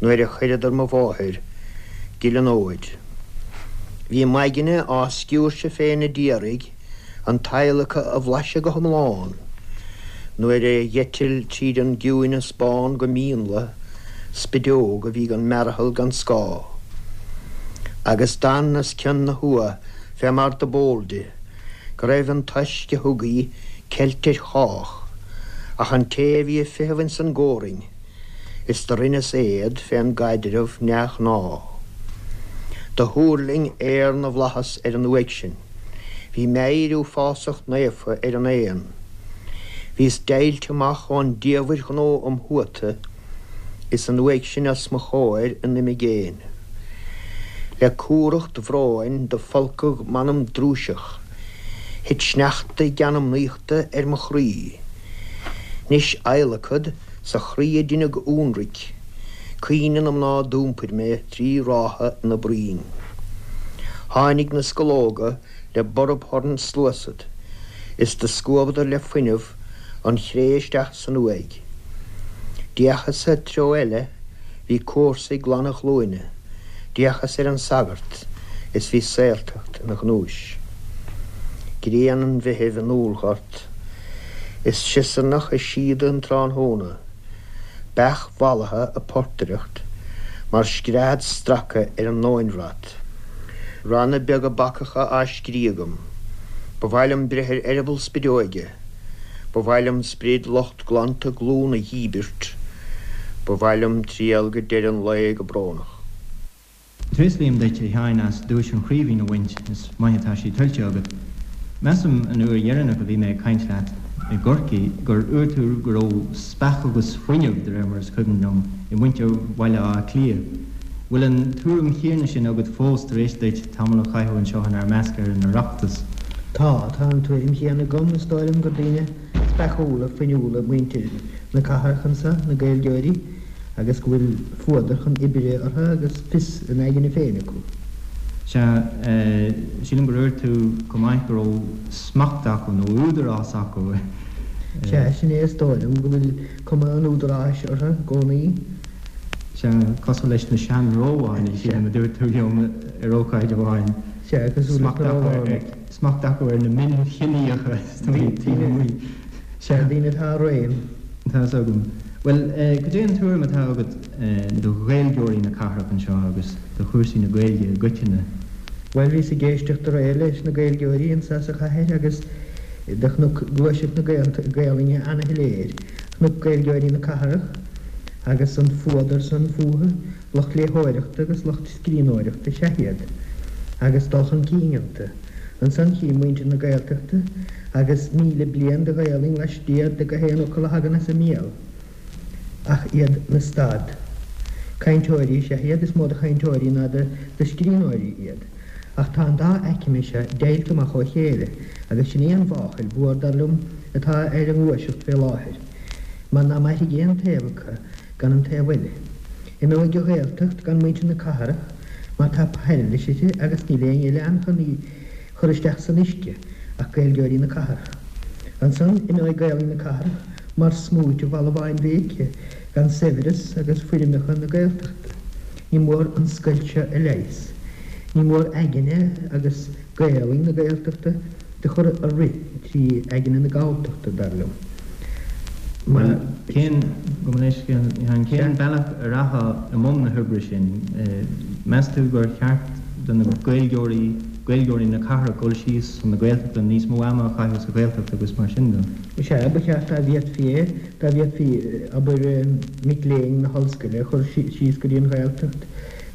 nuair a chuireadar mo mháthair, Gile an fhóid. Bhí m'aigne á sciúirseadh féin a d'iarraidh an t-adhlacadh a bhlaiseadh go hiomlán nuair a d'eitil tríd an gciúineas bán go mínla spideog a bhí gan mearathal gan scáth. Agus d'fhan os cionn na huatha. fé mar do b'eol di, go raibh an toisc a thug í ceilte ar chách, ach an té a bhí ag feitheamh ins an gcomhroinn, is do rinneas éad fén gcaidreamh neamhghnáth. Do thuirling aer na bhflaitheas ar an uaigh sin, bhí meidhir uafásach naofa ar an éan. Bhíos deighilte amach ón diamhair ghnó im thuata, is an uaigh sin os mo chomhair in imigéin. Le cumhracht bhróin do folcadh m'anam drúiseach, thit sneachta geanmnaíochta ar mo chroí. 'Nois adhlacad sa chroí a deineadh ionraic, caoineadh na mná d'iompair mé tri ráithe ina broinn. Tháinig na scológa le borb thorann sluasad, is do scuabadar le fuinneamh an chré isteach san uaigh. D'fhéachas-sa treo eile, bhí comharsa ag glanadh a ghlúine, d'fhéachas ar an sagart is bhí saoltacht ina ghnúis. Grian an Mheithimh i ndúlghort is siosarnach ag síoda an tráthnóna, beach mhallaithe ag portaireacht mar scread straca ar an nóinbhrat. Ranna beaga bacacha á scrí agam. Ba mhaith liom breith ar eireaball spideoige. Ba mhaith liom sprid lucht glanta glún a dhíbirt. Ba mhaith liom triall go deireadh an lae go brónach. Tréaslaím duit, a Sheáin, as duais an Chraoibhín a bhaint, is maith atá sí tuillte agat. Measaim, an uair dheireanach a bhí mé ag caint leat i gCorcaigh, gur dhúirt tú go raibh speach agus fuinneamh, de réir mar is cuimhin liom, i muintir Bhaile Átha Cliath. Bhfuil an tuairim chéanna sin agat fós tar éis duit tamall a chaitheamh anseo inár measc ar an Oireachtas? Tá, tá an tuairim chéanna agam. Is dóigh liom gur daoine speachúla, fuinniúla muintir na cathrach anso, na Gaeilgeoirí, agus go bhfuil fuadar chun oibre orthu agus fios a n-aigne féin acu. Sea, sílim gur dhúirt tú chomh maith go raibh smacht acu, nó údarás acu. Sea, sin é, is dóigh liom go bhfuil cuma an údaráis orthu i gcónaí. Sea, cosúil leis na sean-Rómhánaigh, sílim a dúirt tú liom ar ócáid amháin. Sea, cosúil leis na Rómhánaigh. Smacht acu ar na mionchiníocha, is dóigh, taobh amuigh. Sea, daoine atá i réim. Tá fhios agam. Bhuel, cad é an tuairim atá agat do Ghaeilgeoirí na cathrach anseo agus do chúrsaí na Gaeilge i gcoitinne? Bhuel, bhíos ag éisteacht aréir leis na Gaeilgeoirí anso sa chathair agus do chonac gluaiseacht na Gaelainne ana-shoiléir. Chonac Gaeilgeoirí na cathrach agus an fuadar san fúthu, lucht léitheoireachta agus lucht scríbhneoireachta is ea iad, agus dul chun cinn iontu. Ansan chím muintir na Gaeltachta agus 1,000 bliain de Ghaelainn laistiar de gach aon fhocal a thagann as a mbéal, ach iad 'na stad. Cainteoirí is ea iad, is mó de chainteoirí ná de scríbhneoirí iad. Ach tá an dá aicme seo deighilte amach ó chéile, agus sin í an mháchail mhór, dar liom, atá ar an ngluaiseacht fé láthair, mar ná mairfidh aon taobh acu gan an taobh eile. Imeoidh an Ghaeltacht gan muintir na cathrach, mar tá pairilis uirthi agus níl éinne eile ann chun í chur isteach san uisce ach Gaeilgeoirí na cathrach. Ansan imeoidh Gaelainn na cathrach mar smúit i bhfalbháin bhéice gan saibhreas agus foirmeacha na Gaeltachta. Ní mór an scoilt seo a leigheas. Ní mór aigne agus Gaelainn na Gaeltachta do chur a rith trí aigne na Galltachta, dar liom. Mar. Cén, gabh mo leithscéal, cén bealach a rachfá i mbun na hoibre sin? Meas tú gur cheart do na Gaeilgeoirí, Gaeilgeoirí na cathrach dul síos chun na Gaeltachta, níos mó ama a chaitheamh sa Ghaeltacht agus mar sin de? Sea, ba cheart dá bhféadfaí é. Dá bhféadfaí, abair, mic léinn na hollscoile a chur síos go dtí an Ghaeltacht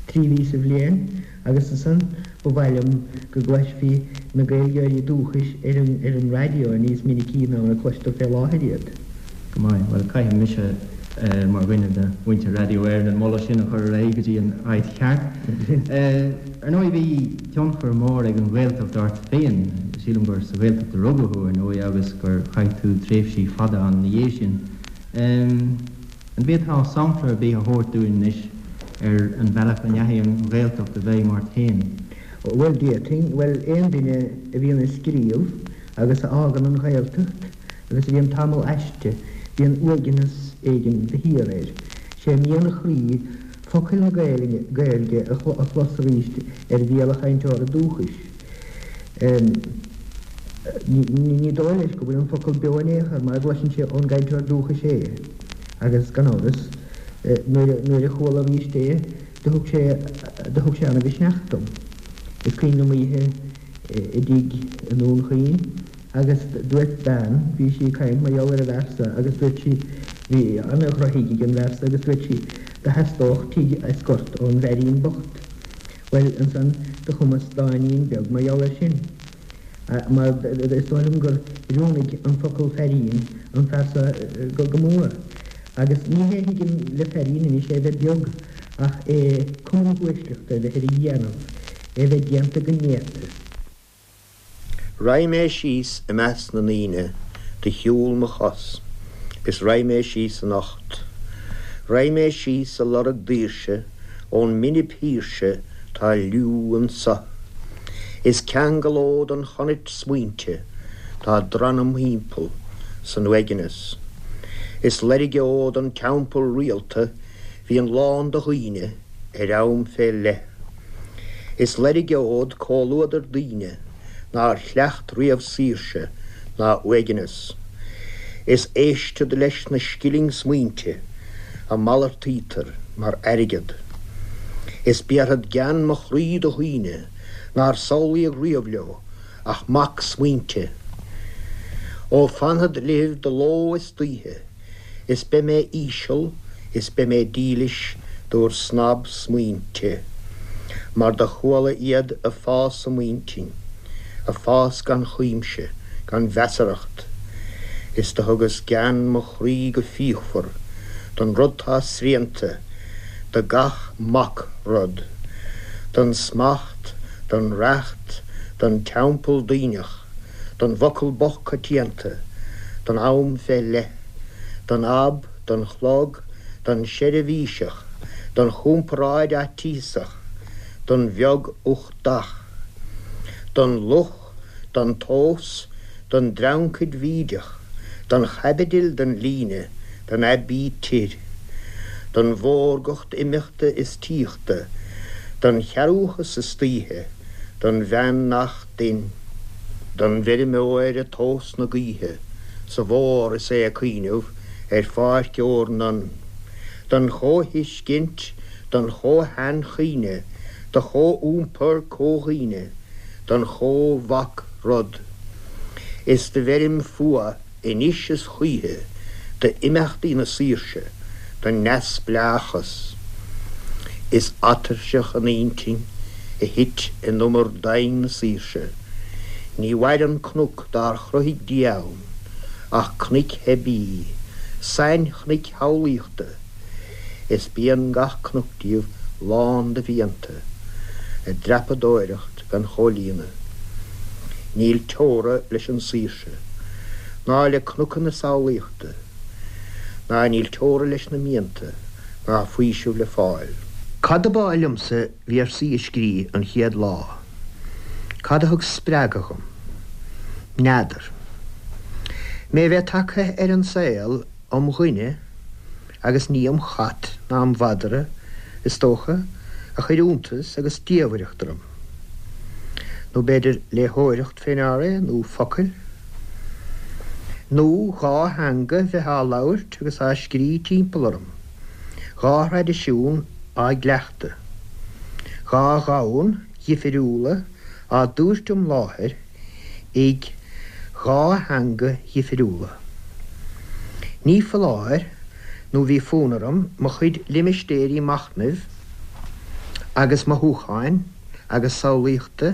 tri mhí sa bhliain agus ansan ba mhaith liom go gcloisfí na Gaeilgeoirí dúchais ar an ar an raidió níos minicí ná mar a cloistear fé láthair iad. Go maith. Bhuel, caithfidh mise, mar dhuine de mhuintir Raidió Éireann, an moladh sin a chur ar aghaidh go dtí an áit cheart. Ar ndóigh, bhí tionchar mór ag an Ghaeltacht ort féin. Sílim gur sa Ghaeltacht a rugadh thú, ar ndóigh, agus gur chaith tú tréimhsí fada ann ina dhiaidh sin. An bhféadfá sampla ar bith a thabhairt dúinn anois ar an bhealach a ndeachaigh an Ghaeltacht i bhfeidhm ort féin? Bhuel, d'fhéadfainn. Bhuel, aon duine a bhíonn ag scríobh agus a fhágann an Ghaeltacht agus a bhíonn tamall aisti, bíonn uaigneas éigin de shíor air. Sé mian a chroí focail na Gaeilge a chlos arís ar bhéal a chainteora dúchais. Ní dóigh leis go bhfuil an focal beo in aon chor mara gcloiseann sé ón gcainteoir dúchais é agus, gan amhras, nuair a chuala arís é do thug sé do thug sé ana-mhisneach dom. Is cuimhin liom oíche. i dtigh i nDún Chaoin agus dúirt bean, bhí sí ag caint mar gheall ar an bhfear so agus dúirt sí, bhí ana-dhrochthigh ag an bhfear so agus dúirt sí, do theastódh tigh as gort ón bhfeairín bocht. Bhuel, ansan do chumas dáinín beag mar gheall air sin. Mar is dóigh liom gur oiriúnaigh an focal feairín an fear so go mór. Agus ní hé a thuigim le feairín anois é bheith beag ach é cuma na huaisleachta a bheith ar a dhéanamh, é bheith déanta go néata. Raghaidh mé síos i measc na ndaoine de shiúl mo chos is raghaidh mé síos anocht. Raghaidh mé síos a lorg daoirse ón mbinib shaoirse tá liú anso. Is ceangalód an chonait smaointe tá drann im thimpeall san uaigneas. Is loirgeod an teampall rialta bhíonn lán de dhaoine ar am fé leith. Is loirgeod comhluadar daoine nár chleacht riamh saoirse ná uaigneas. Is éistfead leis na scilling smaointe a malartaítear mar airgead. Is béarfad gean mo chroí do dhaoine nár samhlaíodh riamh leo ach mac smaointe. Ó fanfad libh de ló is d'oíche, is beidh mé íseal is beidh mé dílis d'bhur snab smaointe, mar do chuala iad a fás i m'intinn, a fás gan chuimse, gan mheasarthacht, is do thugas gean mo chroí go fíochmhar don rud tá srianta, do gach mac rud, don smacht, don reacht, don teampall daoineach, don bhfocal bocht coitianta, don am fé leith, don ab, don chlog, don seirbhíseach, don chomparáid fhaitíosach, don bheag uchtach, don luch, don tomhas, don dreancaid bhídeach, don chaibidil, don líne, don aibítir, don mhórgacht imeachta is tíochta, don chearúchas istoíche, don bhean nach dtinn, don bhfeirmeoir ag tomhas na gaoithe sa bhfómhar is é ag cuimhneamh ar pháirc ór nan, don chomhthuiscint, don chomh-sheanchuimhne, do chomhiompar comhdhaoine, don chomh-mhac rud. Is do bheirim fuath anois is choíche d'imeachtaí na saoirse, don neamhspleáchas. Is atuirseach an intinn a thit in umar doimhin na saoirse. Ní mhaireann cnoc dár chruthaigh Dia ann ach cnoic theibí, sainchnoic shamhlaíochta. Is bíonn gach cnoc díobh lán de mhianta, a dtreapadóireacht gan chomhlíonadh. Níl teora leis an saoirse, ná le cnoca na samhlaíochta, ná níl teora leis na mianta, ná faoiseamh le fáil. Cad ab áil liomsa véarsaí a scrí an chéad lá? Cad a thug spreagadh dhom? N'fheadar. Mé bheith tagtha ar an saol um dhuine agus ní um chat ná um mhadra, is dócha, a chuir iontas agus diamhaireacht orm. Nó b'fhéidir léitheoireacht fé ndear é, nó focail. Nó dha theanga bheith á labhairt agus á scrí timpeall orm, dhá thraidisiún á gcleachtadh, dhá dhomhan dhifiriúla á dtabhairt im láthair ag dhá theanga dhifiriúla. Ní foláir nó bhí fonn orm mo chuid limistéirí machnaimh agus mothúcháin agus samhlaíochta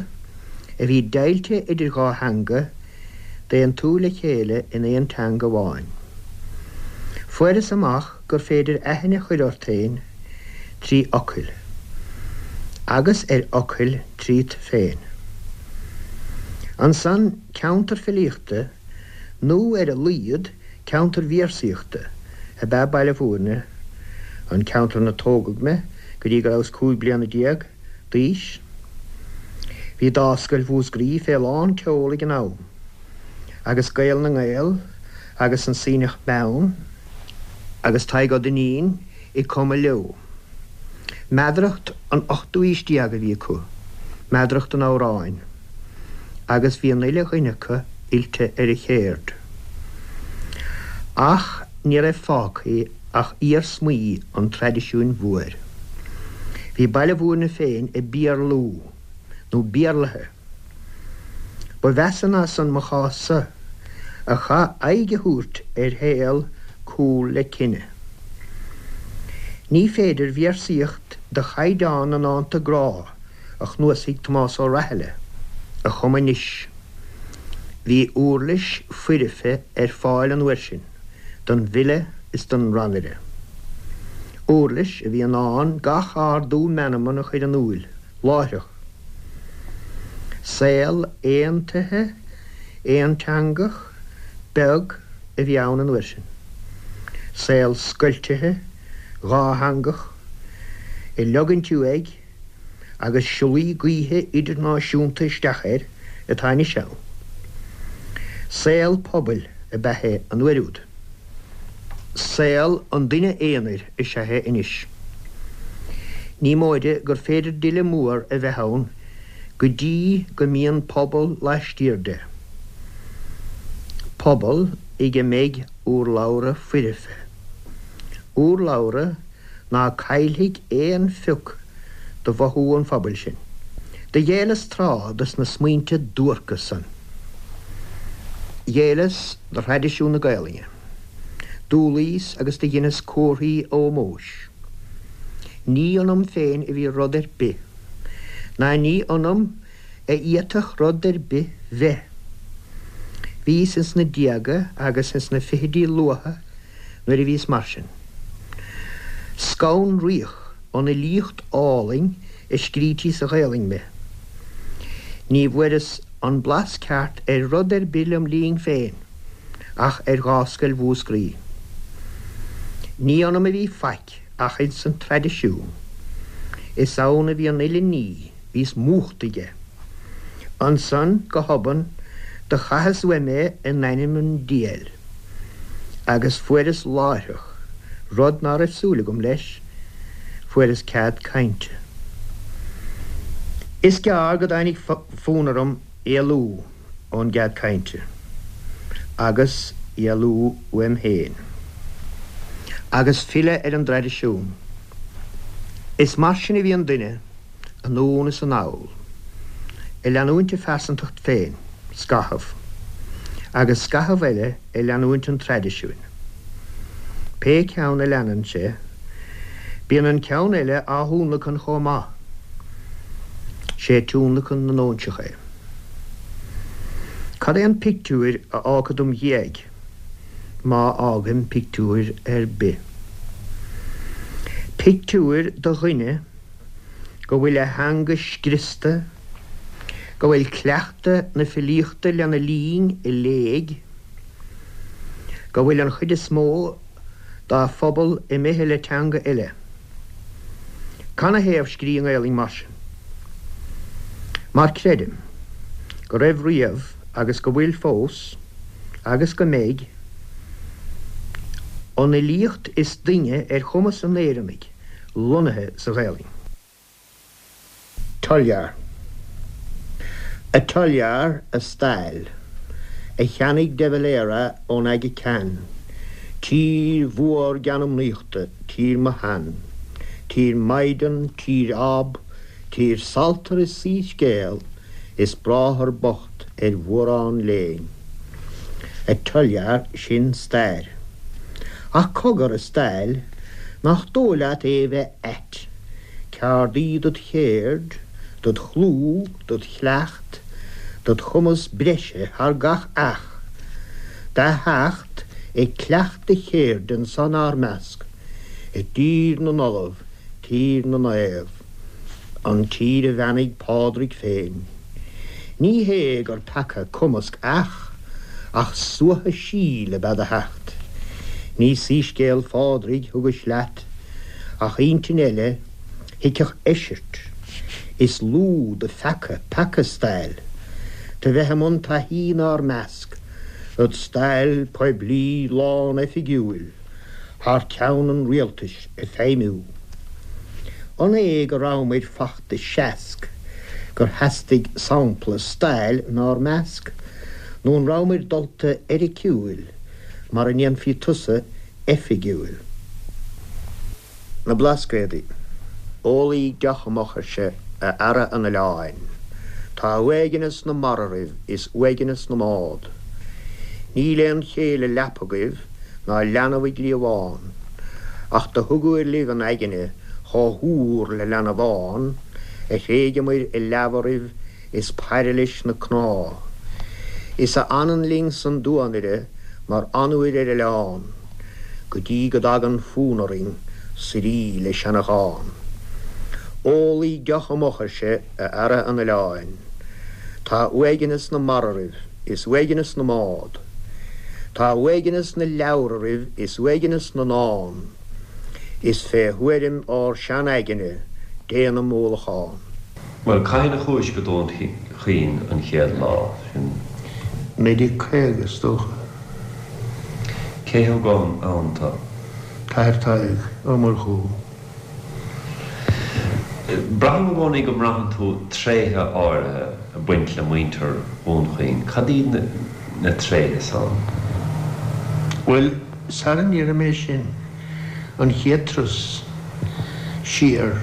a bhí deighilte idir dhá theanga d'aontú le chéile in aon teanga amháin. Fuaireas amach gur féidir aithne a chur ort féin trí fhocail, agus ar fhocail tríot féin. Ansan, ceantar filíochta, nó ar a laghad ceantar véarsaíochta, ab ea Baile Bhúirne, an ceantar ina tógadh mé go dtí go rabhas 15 bliana d'aois. Bhí Dámhscoil Mhúscraí fé lán tseol ag an am, agus Gael na nGael agus an Sionnach Meann agus Tadhg Ó Duinnín ag cumadh leo. Meadaracht an ochtú aois déag a bhí acu, meadaracht an amhráin, agus bhí an uile dhuine acu oilte ar an chéird. Ach ní raibh fágtha ach iarsmaí an traidisiúin mhóir. Bhí Baile Bhúirne féin ag Béarlú, nó Béarlaithe. Ba mheasa ná san mo chás-sa, a chaith aghaidh a thabhairt ar shaol cúl le cine. Ní féidir véarsaíocht de chaighdeán na ndánta grá a chnuasaigh Tomás Ó Rathile a chumadh anois. Bhí uirlis foirfe ar fáil an uair sin don bhfile is don rannaire. Uirlis a bhí in ann gach ardú meanman a chur in iúil láithreach. Saol aontaithe, aonteangach, beag a bhí ann an uair sin. Saol scoiltithe, dhátheangach, ag leogaint uaidh agus siollaí gaoithe idirnáisiúnta isteach air atá anois ann. Saol pobail ab ea é an uair úd. Saol an duine aonair is ea é anois. Ní móide gur féidir d'fhile mór a bheith ann go dtí go mbíonn pobal laistiar de. Pobal ag a mbeidh urlabhra foirfe. Urlabhra ná caillfidh aon phioc de mhothú an phobail sin. Do ghéilleas tráth dos na smaointe duairce san. Ghéilleas do thraidisiún na Gaelainne. D'umhlaíos agus do dheineas comharthaí ómóis. Ní ionam féin a bhí rud ar bith, ná ní ionam a fhéadfadh rud ar bith bheith. Bhíos ins na déaga agus ins na fichidí luatha nuair a bhíos mar sin. Scanraíodh ón fhilíocht álainn a scrítí sa Ghaelainn mé. Ní bhfuaireas an blas ceart ar rud ar bith lem linn féin ach ar Gháscoil Mhúscraí. Ní ionam a bhí faic ach ins an traidisiún. Is ann a bhí an uile ní, bhíos múchta aige. Ansan, go hobann, do chaitheas uaim é in ainm an diabhail, agus fuaireas láithreach, rud ná raibh súil agam leis, fuaireas cead cainte. Is gearr go dtáinig fonn orm éalú ón gcead cainte, agus éalú uaim féin, agus filleadh ar an dtraidisiún. Is mar sin a bhíonn duine. anonn is anall, ag leanúint a phearsantacht féin, scaitheamh, agus scaitheamh eile ag leanúint an traidisiúin. Pé ceann a leanann sé, bíonn an ceann eile á thionlacan chomh maith. Sé tionlacan na n-óinseach é. Cad é an pictiúir a fhágfad im dhiaidh, má fhágaim pictiúir ar bith? Pictiúir de dhuine go bhfuil a theanga scriosta, go bhfuil cleachtadh na filíochta lena linn i léig, go bhfuil an chuid is mó dá phobal imithe le teanga eile. Canathaobh scrí i nGaelainn mar sin? Mar creidim go raibh riamh agus go bhfuil fós agus go mbeidh an fhilíocht is doimhne ar chumas an Éireannaigh lonnaithe sa Ghaelainn. Tulyar. A Tulyar, a stail, a cheannaigh de Valera ón Aga Khan, tír mhór geanmnaíochta, tír mo shean, tír maighdean, tír ab, tír saltar is soíscéal, is bráthair bocht ar mhórán léinn. A Tulyar, sin stair. Ach cogar, a stail, nach dóigh leat é bheith ait, ceard í dod chéird, dod chlú, dod chleacht, dod chumas breise thar gach each, do theacht ag cleacht do chéirde anso 'nár measc, i dtír na n-ollamh, tír na naomh, an tír a bheannaigh Pádraig féin. Ní hé gur peaca cumasc each, ach suaitheadh síl ab ea do theacht. Ní soíscéal Phádraig thugais leat, ach intinn eile thuigfeadh eisirt. Is lú do pheaca peaca stail, do bheith i mbun taithí 'nár measc, id stail poiblí lán-oifigiúil thar ceann an rialtais ag feidhmiú. An é go rabhamair fachta seasc gur theastaigh sampla stail 'nár measc, nó an rabhamair dulta eiriciúil mar a ndéanfaí tusa oifigiúil? Na Blascaodaí. Ólaíg deoch amach, ar sé, a fheara an oileáin. Tá uaigneas na mara oraibh is uaigneas na mbád. Níl aon chéile leapa agaibh ná leanbh i gcliabhán, ach do thugair libh an aigne chomh húr le leanbhán, a thréigeamair i leamh oraibh is pairilis na cnámh. Is a fhanann linn san duanaire mar fhionnuair ar oileán, go dtí go dtagann fonn orainn suirí le seanachán. Ólaidh deoch amuich, ar sé, a fheara an oileáin. Tá uaigneas na mara oraibh is uaigneas na mbád. Tá uaigneas na leabhar oraibh is uaigneas na ndán. Is fé thuairim ár sean-aigne déanaim ólachán. Bhuel, cathain a chuais go Dún Chaoin an chéad lá sin? 1950, is dócha. Cé thug ann tú? T-Athair Tadhg Ó Murchú. Braithim i gcónaí go mbraitheann tú tréithe áirithe ag baint le muintir Dhún Chaoin. Cad iad na tréithe san? Bhuel, sara ndéarfaidh mé sin, an chéad turas siar,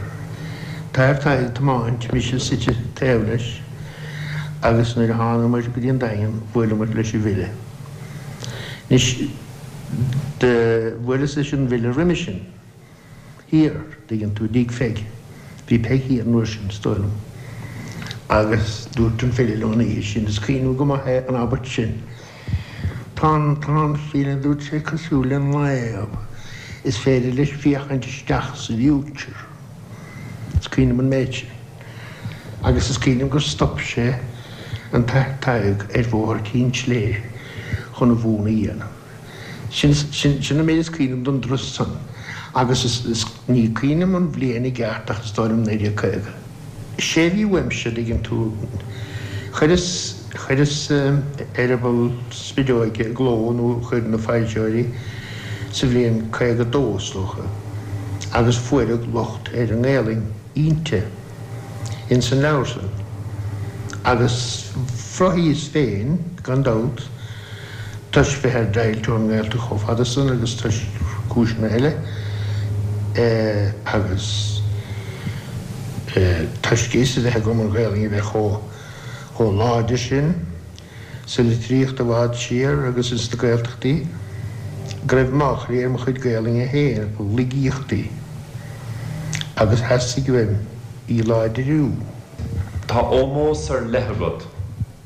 T-Athair Tadhg ag tiomáint, mise suite taobh leis, agus nuair a thánamair go dtí an Daingean, bhuaileamair leis an bhfile. Anois, do bhuaileas leis an bhfile roimhe sin. thiar, dtuigeann tú, i dtigh Pheig. Bhí Peig thiar an uair sin, is dóigh liom. Agus dúirt an file liom an oíche sin, is cuimhin liom go maith é, an abairt sin, Tá an, tá an file, a dúirt sé, cosúil le naomh, is féidir leis féachaint isteach sa bhfuture. Is cuimhin liom an méid sin. Agus is cuimhin liom gur stop sé an tAthair Tadhg ar Bhóthar Chinn tSléibhe chun a mhúnadh a dhéanamh. Sin, sin, sin an méid is cuimhin liom don dturas san agus is, is, ní cuimhin liom an bhliain i gceart ach is dóigh liom 1950. Sé a bhí uaimse, a dtuigeann tú, chuireas, chuireas Eireaball Spideoige i gcló nó chuir na foilsitheoirí sa bhliain 52 is dócha agus fuaireadh locht ar an nGaelainn inti, ins an leabhar san agus bhraithis féin, gan dabht, toisc bheith ar deighilt ón nGaeltacht chomh fada san agus toisc cúiseanna eile agus toisc fhios a bheith agam an Ghaelainn a bheith chomh láidir sin sa litríocht i bhfad siar agus ins na Gaeltachtaí go raibh máchailí ar mo chuid Gaelainne féin, laigíochtaí, agus theastaigh uaim í láidriú. Tá ómós ar leith agat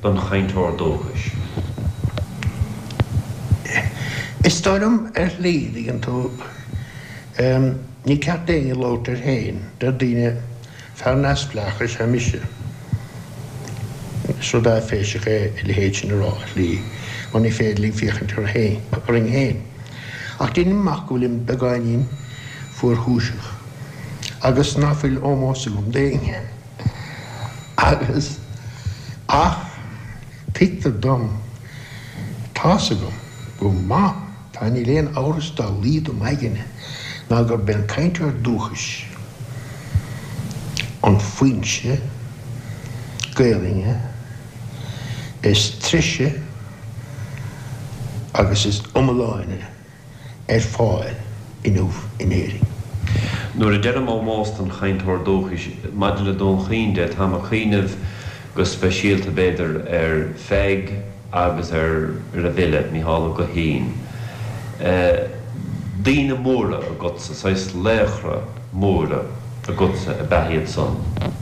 don chainteoir dúchais. Is dóigh liom ar shlí, dtuigeann tú, ní ceart d'éinne labhairt air féin, deir daoine, fear neamhspleách is ea mise. Is rud áiféiseach é a leithéid sin a rá ar shlí, mar ní féidir linn féachaint orainn féin. Ach deinim amach go bhfuilim beagáinín fuarchúiseach agus ná fuil ómós agam d'éinne. Agus, ach, tuigtear dom, tá's agam go maith, tá, níl aon amhras dá laghad i m'aigne ná gurb é an cainteoir dúchais an foinse Gaelainne is treise agus is iomláine. ar fáil inniu in Éirinn. Nuair a deirim ómós don chainteoir dúchais, maidir le Dún Chaoin de, táim ag cuimhneamh go speisialta, b'fhéidir, ar Pheig agus ar an bhfile, Mícheál Ó Guithín. Daoine móra agatsa, saghas laochra móra agatsa ab ea iad san,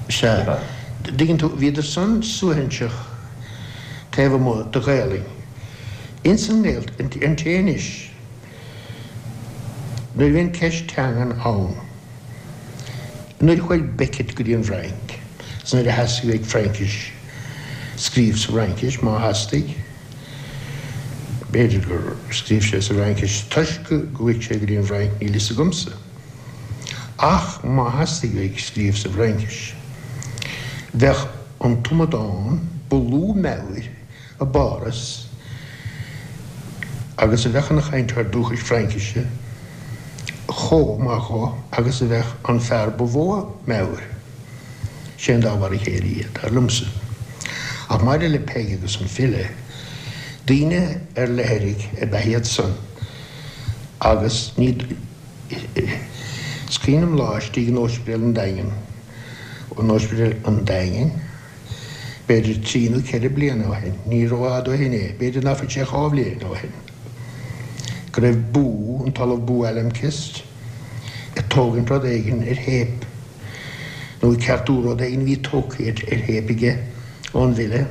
Sea. Dtuigeann tú, bhíodar san suaithinseach taobh amuigh de Ghaelainn. Ins an nGaeltacht, an té anois, nuair a bhíonn ceist teangan ann, nuair a chuaigh Beckett go dtí an bhFrainc, is nuair a theastaigh uaidh Fraincis, scríobh sa bhFraincis, má theastaigh, b'fhéidir gur scríobh sé sa bhFraincis toisc go gcuaigh sé go dtí an bhFrainc, níl fhios agamsa. Ach má theastaigh uaidh scríobh sa bhFraincis, bheadh an t-amadán ba lú meabhair i bPáras agus a bheadh ina chainteoir dúchais Fraincise chomh maith dhó agus a bheadh an fear ba mhó meabhair. Sé an dá mhar a chéile iad, dar liomsa. Ach maidir le Peig agus an file, daoine ar leithrigh ab ea iad san agus ní Is cuimhin liom lá istigh in Ospidéal an Daingin, in Ospidéal an Daingin, B'fhéidir trí nó ceithre bliana ó shin, ní rófhada ó shin é, b'fhéidir ná fuil sé 2 bhliain ó shin, go raibh Boo, an tOllamh Bo Almqvist, ag tógaint rud éigin ar théip, nó ag ceartú rud éigin a bhí tógtha ar théip aige ón bhfile,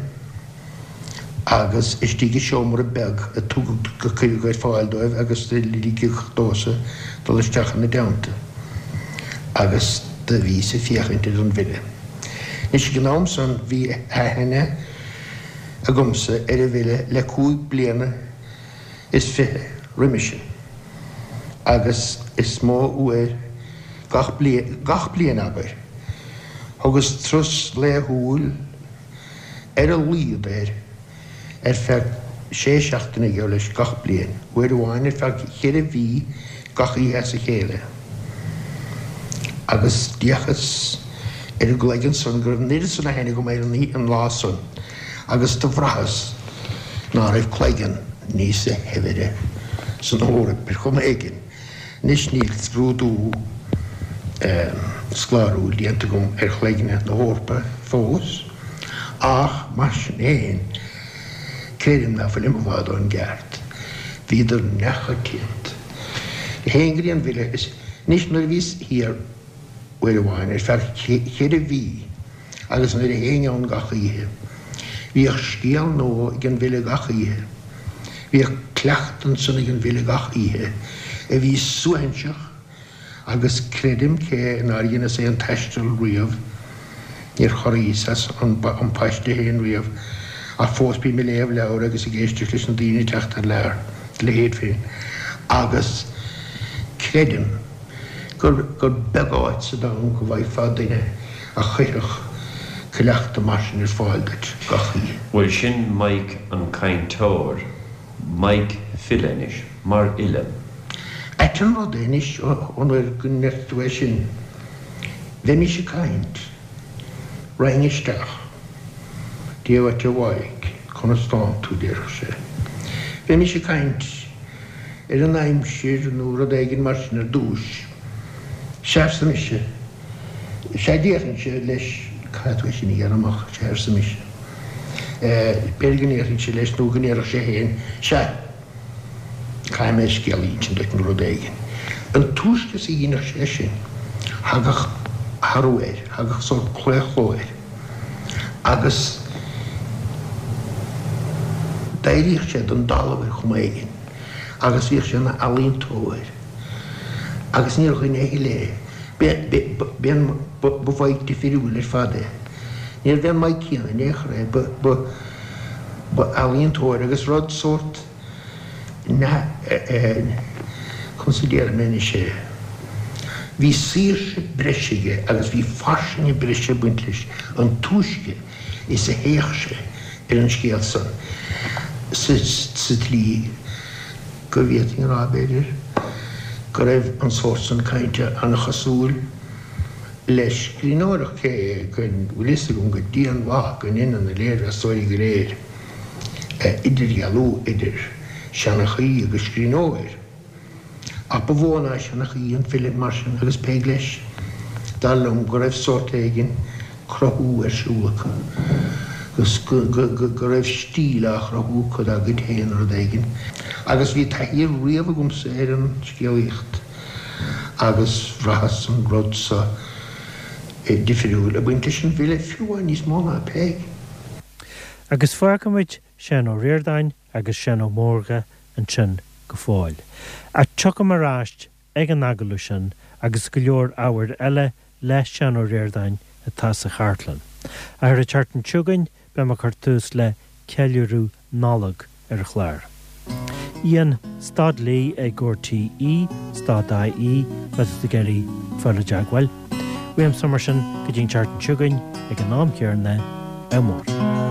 agus istigh i seomra beag a tugadh, a cuireadh ar fáil dóibh agus do ligeadh domhsa dul isteach ina dteannta agus do bhíos ag féachaint ar an bhfile. Anois ag an am san bhí aithne agamsa ar an bhfile le 25 bliana roimhe sin agus is mó uair gach bliain, gach bliain abair, thugas turas laethúil ar a laghad air ar feadh sé seachtaine geall leis gach bliain, uair amháin ar feadh cheithre mhí gach oíche as a chéile. Agus d'fhéachas ar an gcloigeann san go raibh an oiread san aithne agam air an lá san agus do bhraitheas ná raibh cloigeann níosa shaibhre san Eoraip ar chuma éigin. Anois níl scrúdú scoláiriúil déanta agam ar chloigne na hEorpa fós, ach mar sin féin, creidim ná fuilim i bhfad ón gceart. Bhíodar neamhchoitianta. Théinn go dtí an bhfile is anois nuair a bhíos thiar uair amháin ar feadh cheithre mhí agus nuair a théinn ann gach oíche, bhíodh scéal nua ag an bhfile gach oíche. Bhíodh cleachtadh ansan ag an bhfile gach oíche a bhí suaithinseach agus creidim cé nár dheineas aon taisteal riamh, níor chorraíos as an bpaiste féin riamh ach fós bím ag léamh leabhar agus ag éisteacht leis na daoine ag teacht thar lear, do leithéid féin agus creidim gur gur beag áit sa domhan go bhfaighfeá duine a chuirfeadh cleachtadh mar sin ar fáil duit gach oíche. Bhuel sin Mike an cainteoir, Mike file anois, mar fhile. Ait an rud é anois ón uair go ndeir tú é sin, bheimis ag caint, raghainn isteach, Dia dhuit a Mhaidhc, conas tánn tú, déarfadh sé. Bheimis ag caint ar an aimsir nó rud éigin mar sin ar dtúis. Sea, arsa mise. Sea, déarfainnse leis, caithfidh tú é sin a ghearradh amach, sea, arsa mise. B'fhéidir go ndéarfainnse leis nó go ndéarfadh sé féin, sea, caithfidh mé scéal a insint duit nó rud éigin. An túisce is a dheineadh sé sin, thagadh athrú air, thagadh sórt claochló air agus d'éiríodh sé den dtalamh ar chuma éigin agus bhíodh sé ina ealaíontóir agus níor dhuine a thuilleadh é. Ba Mhaidhc difiriúil ar fad é. Níorbh é an Maidhc céanna in aon chor é. Ba ealaíontóir agus rud sórt conas a déarfaidh mé anois é, bhí saoirse breise aige agus bhí fairsinge breise ag baint leis an túisce is a théadh sé ar an scéal san sa tslí go bhféadfainn a rá, b'fhéidir, go raibh an sórt san cainte an-chosúil le scríbhneoireacht, cé go bhfuil fhios agam go dianmhaith go ndeineann na léirmheastóirí go léir idirdhealú idir seanchaí agus scríbhneoir. Ach ba mhó ná seanchaí an file mar sin agus Peig leis, dar liom go raibh sórt éigin cruthú ar siúl acu, agus go raibh stíl á chruthú acu dá gcuid féin, rud éigin. Agus bhí taithí riamh agamsa ar an scéalaíocht agus bhraitheas an rud so difriúil ag baint leis an bhfile, fiú amháin níos mó ná Peig. Agus fágfaimid Seán Ó Ríordáin agus Seán Ó Mórdha ansin go fóill. Ach tiocfaidh mé ar ais ag an agallamh sin agus go leor ábhair eile le Seán Ó Ríordáin atá sa chartlann. Ach ar an tseachtain seo chugainn beidh mé ag cur tús le ceiliúradh Nollag ar an chlár. Ian stad Lee ag RTÉ stad IE má tá tú ag iarraidh fáil i dteagmháil. Uaimse mar sin go dtí an tseachtain seo chugainn ag an am céanna, ádh mór.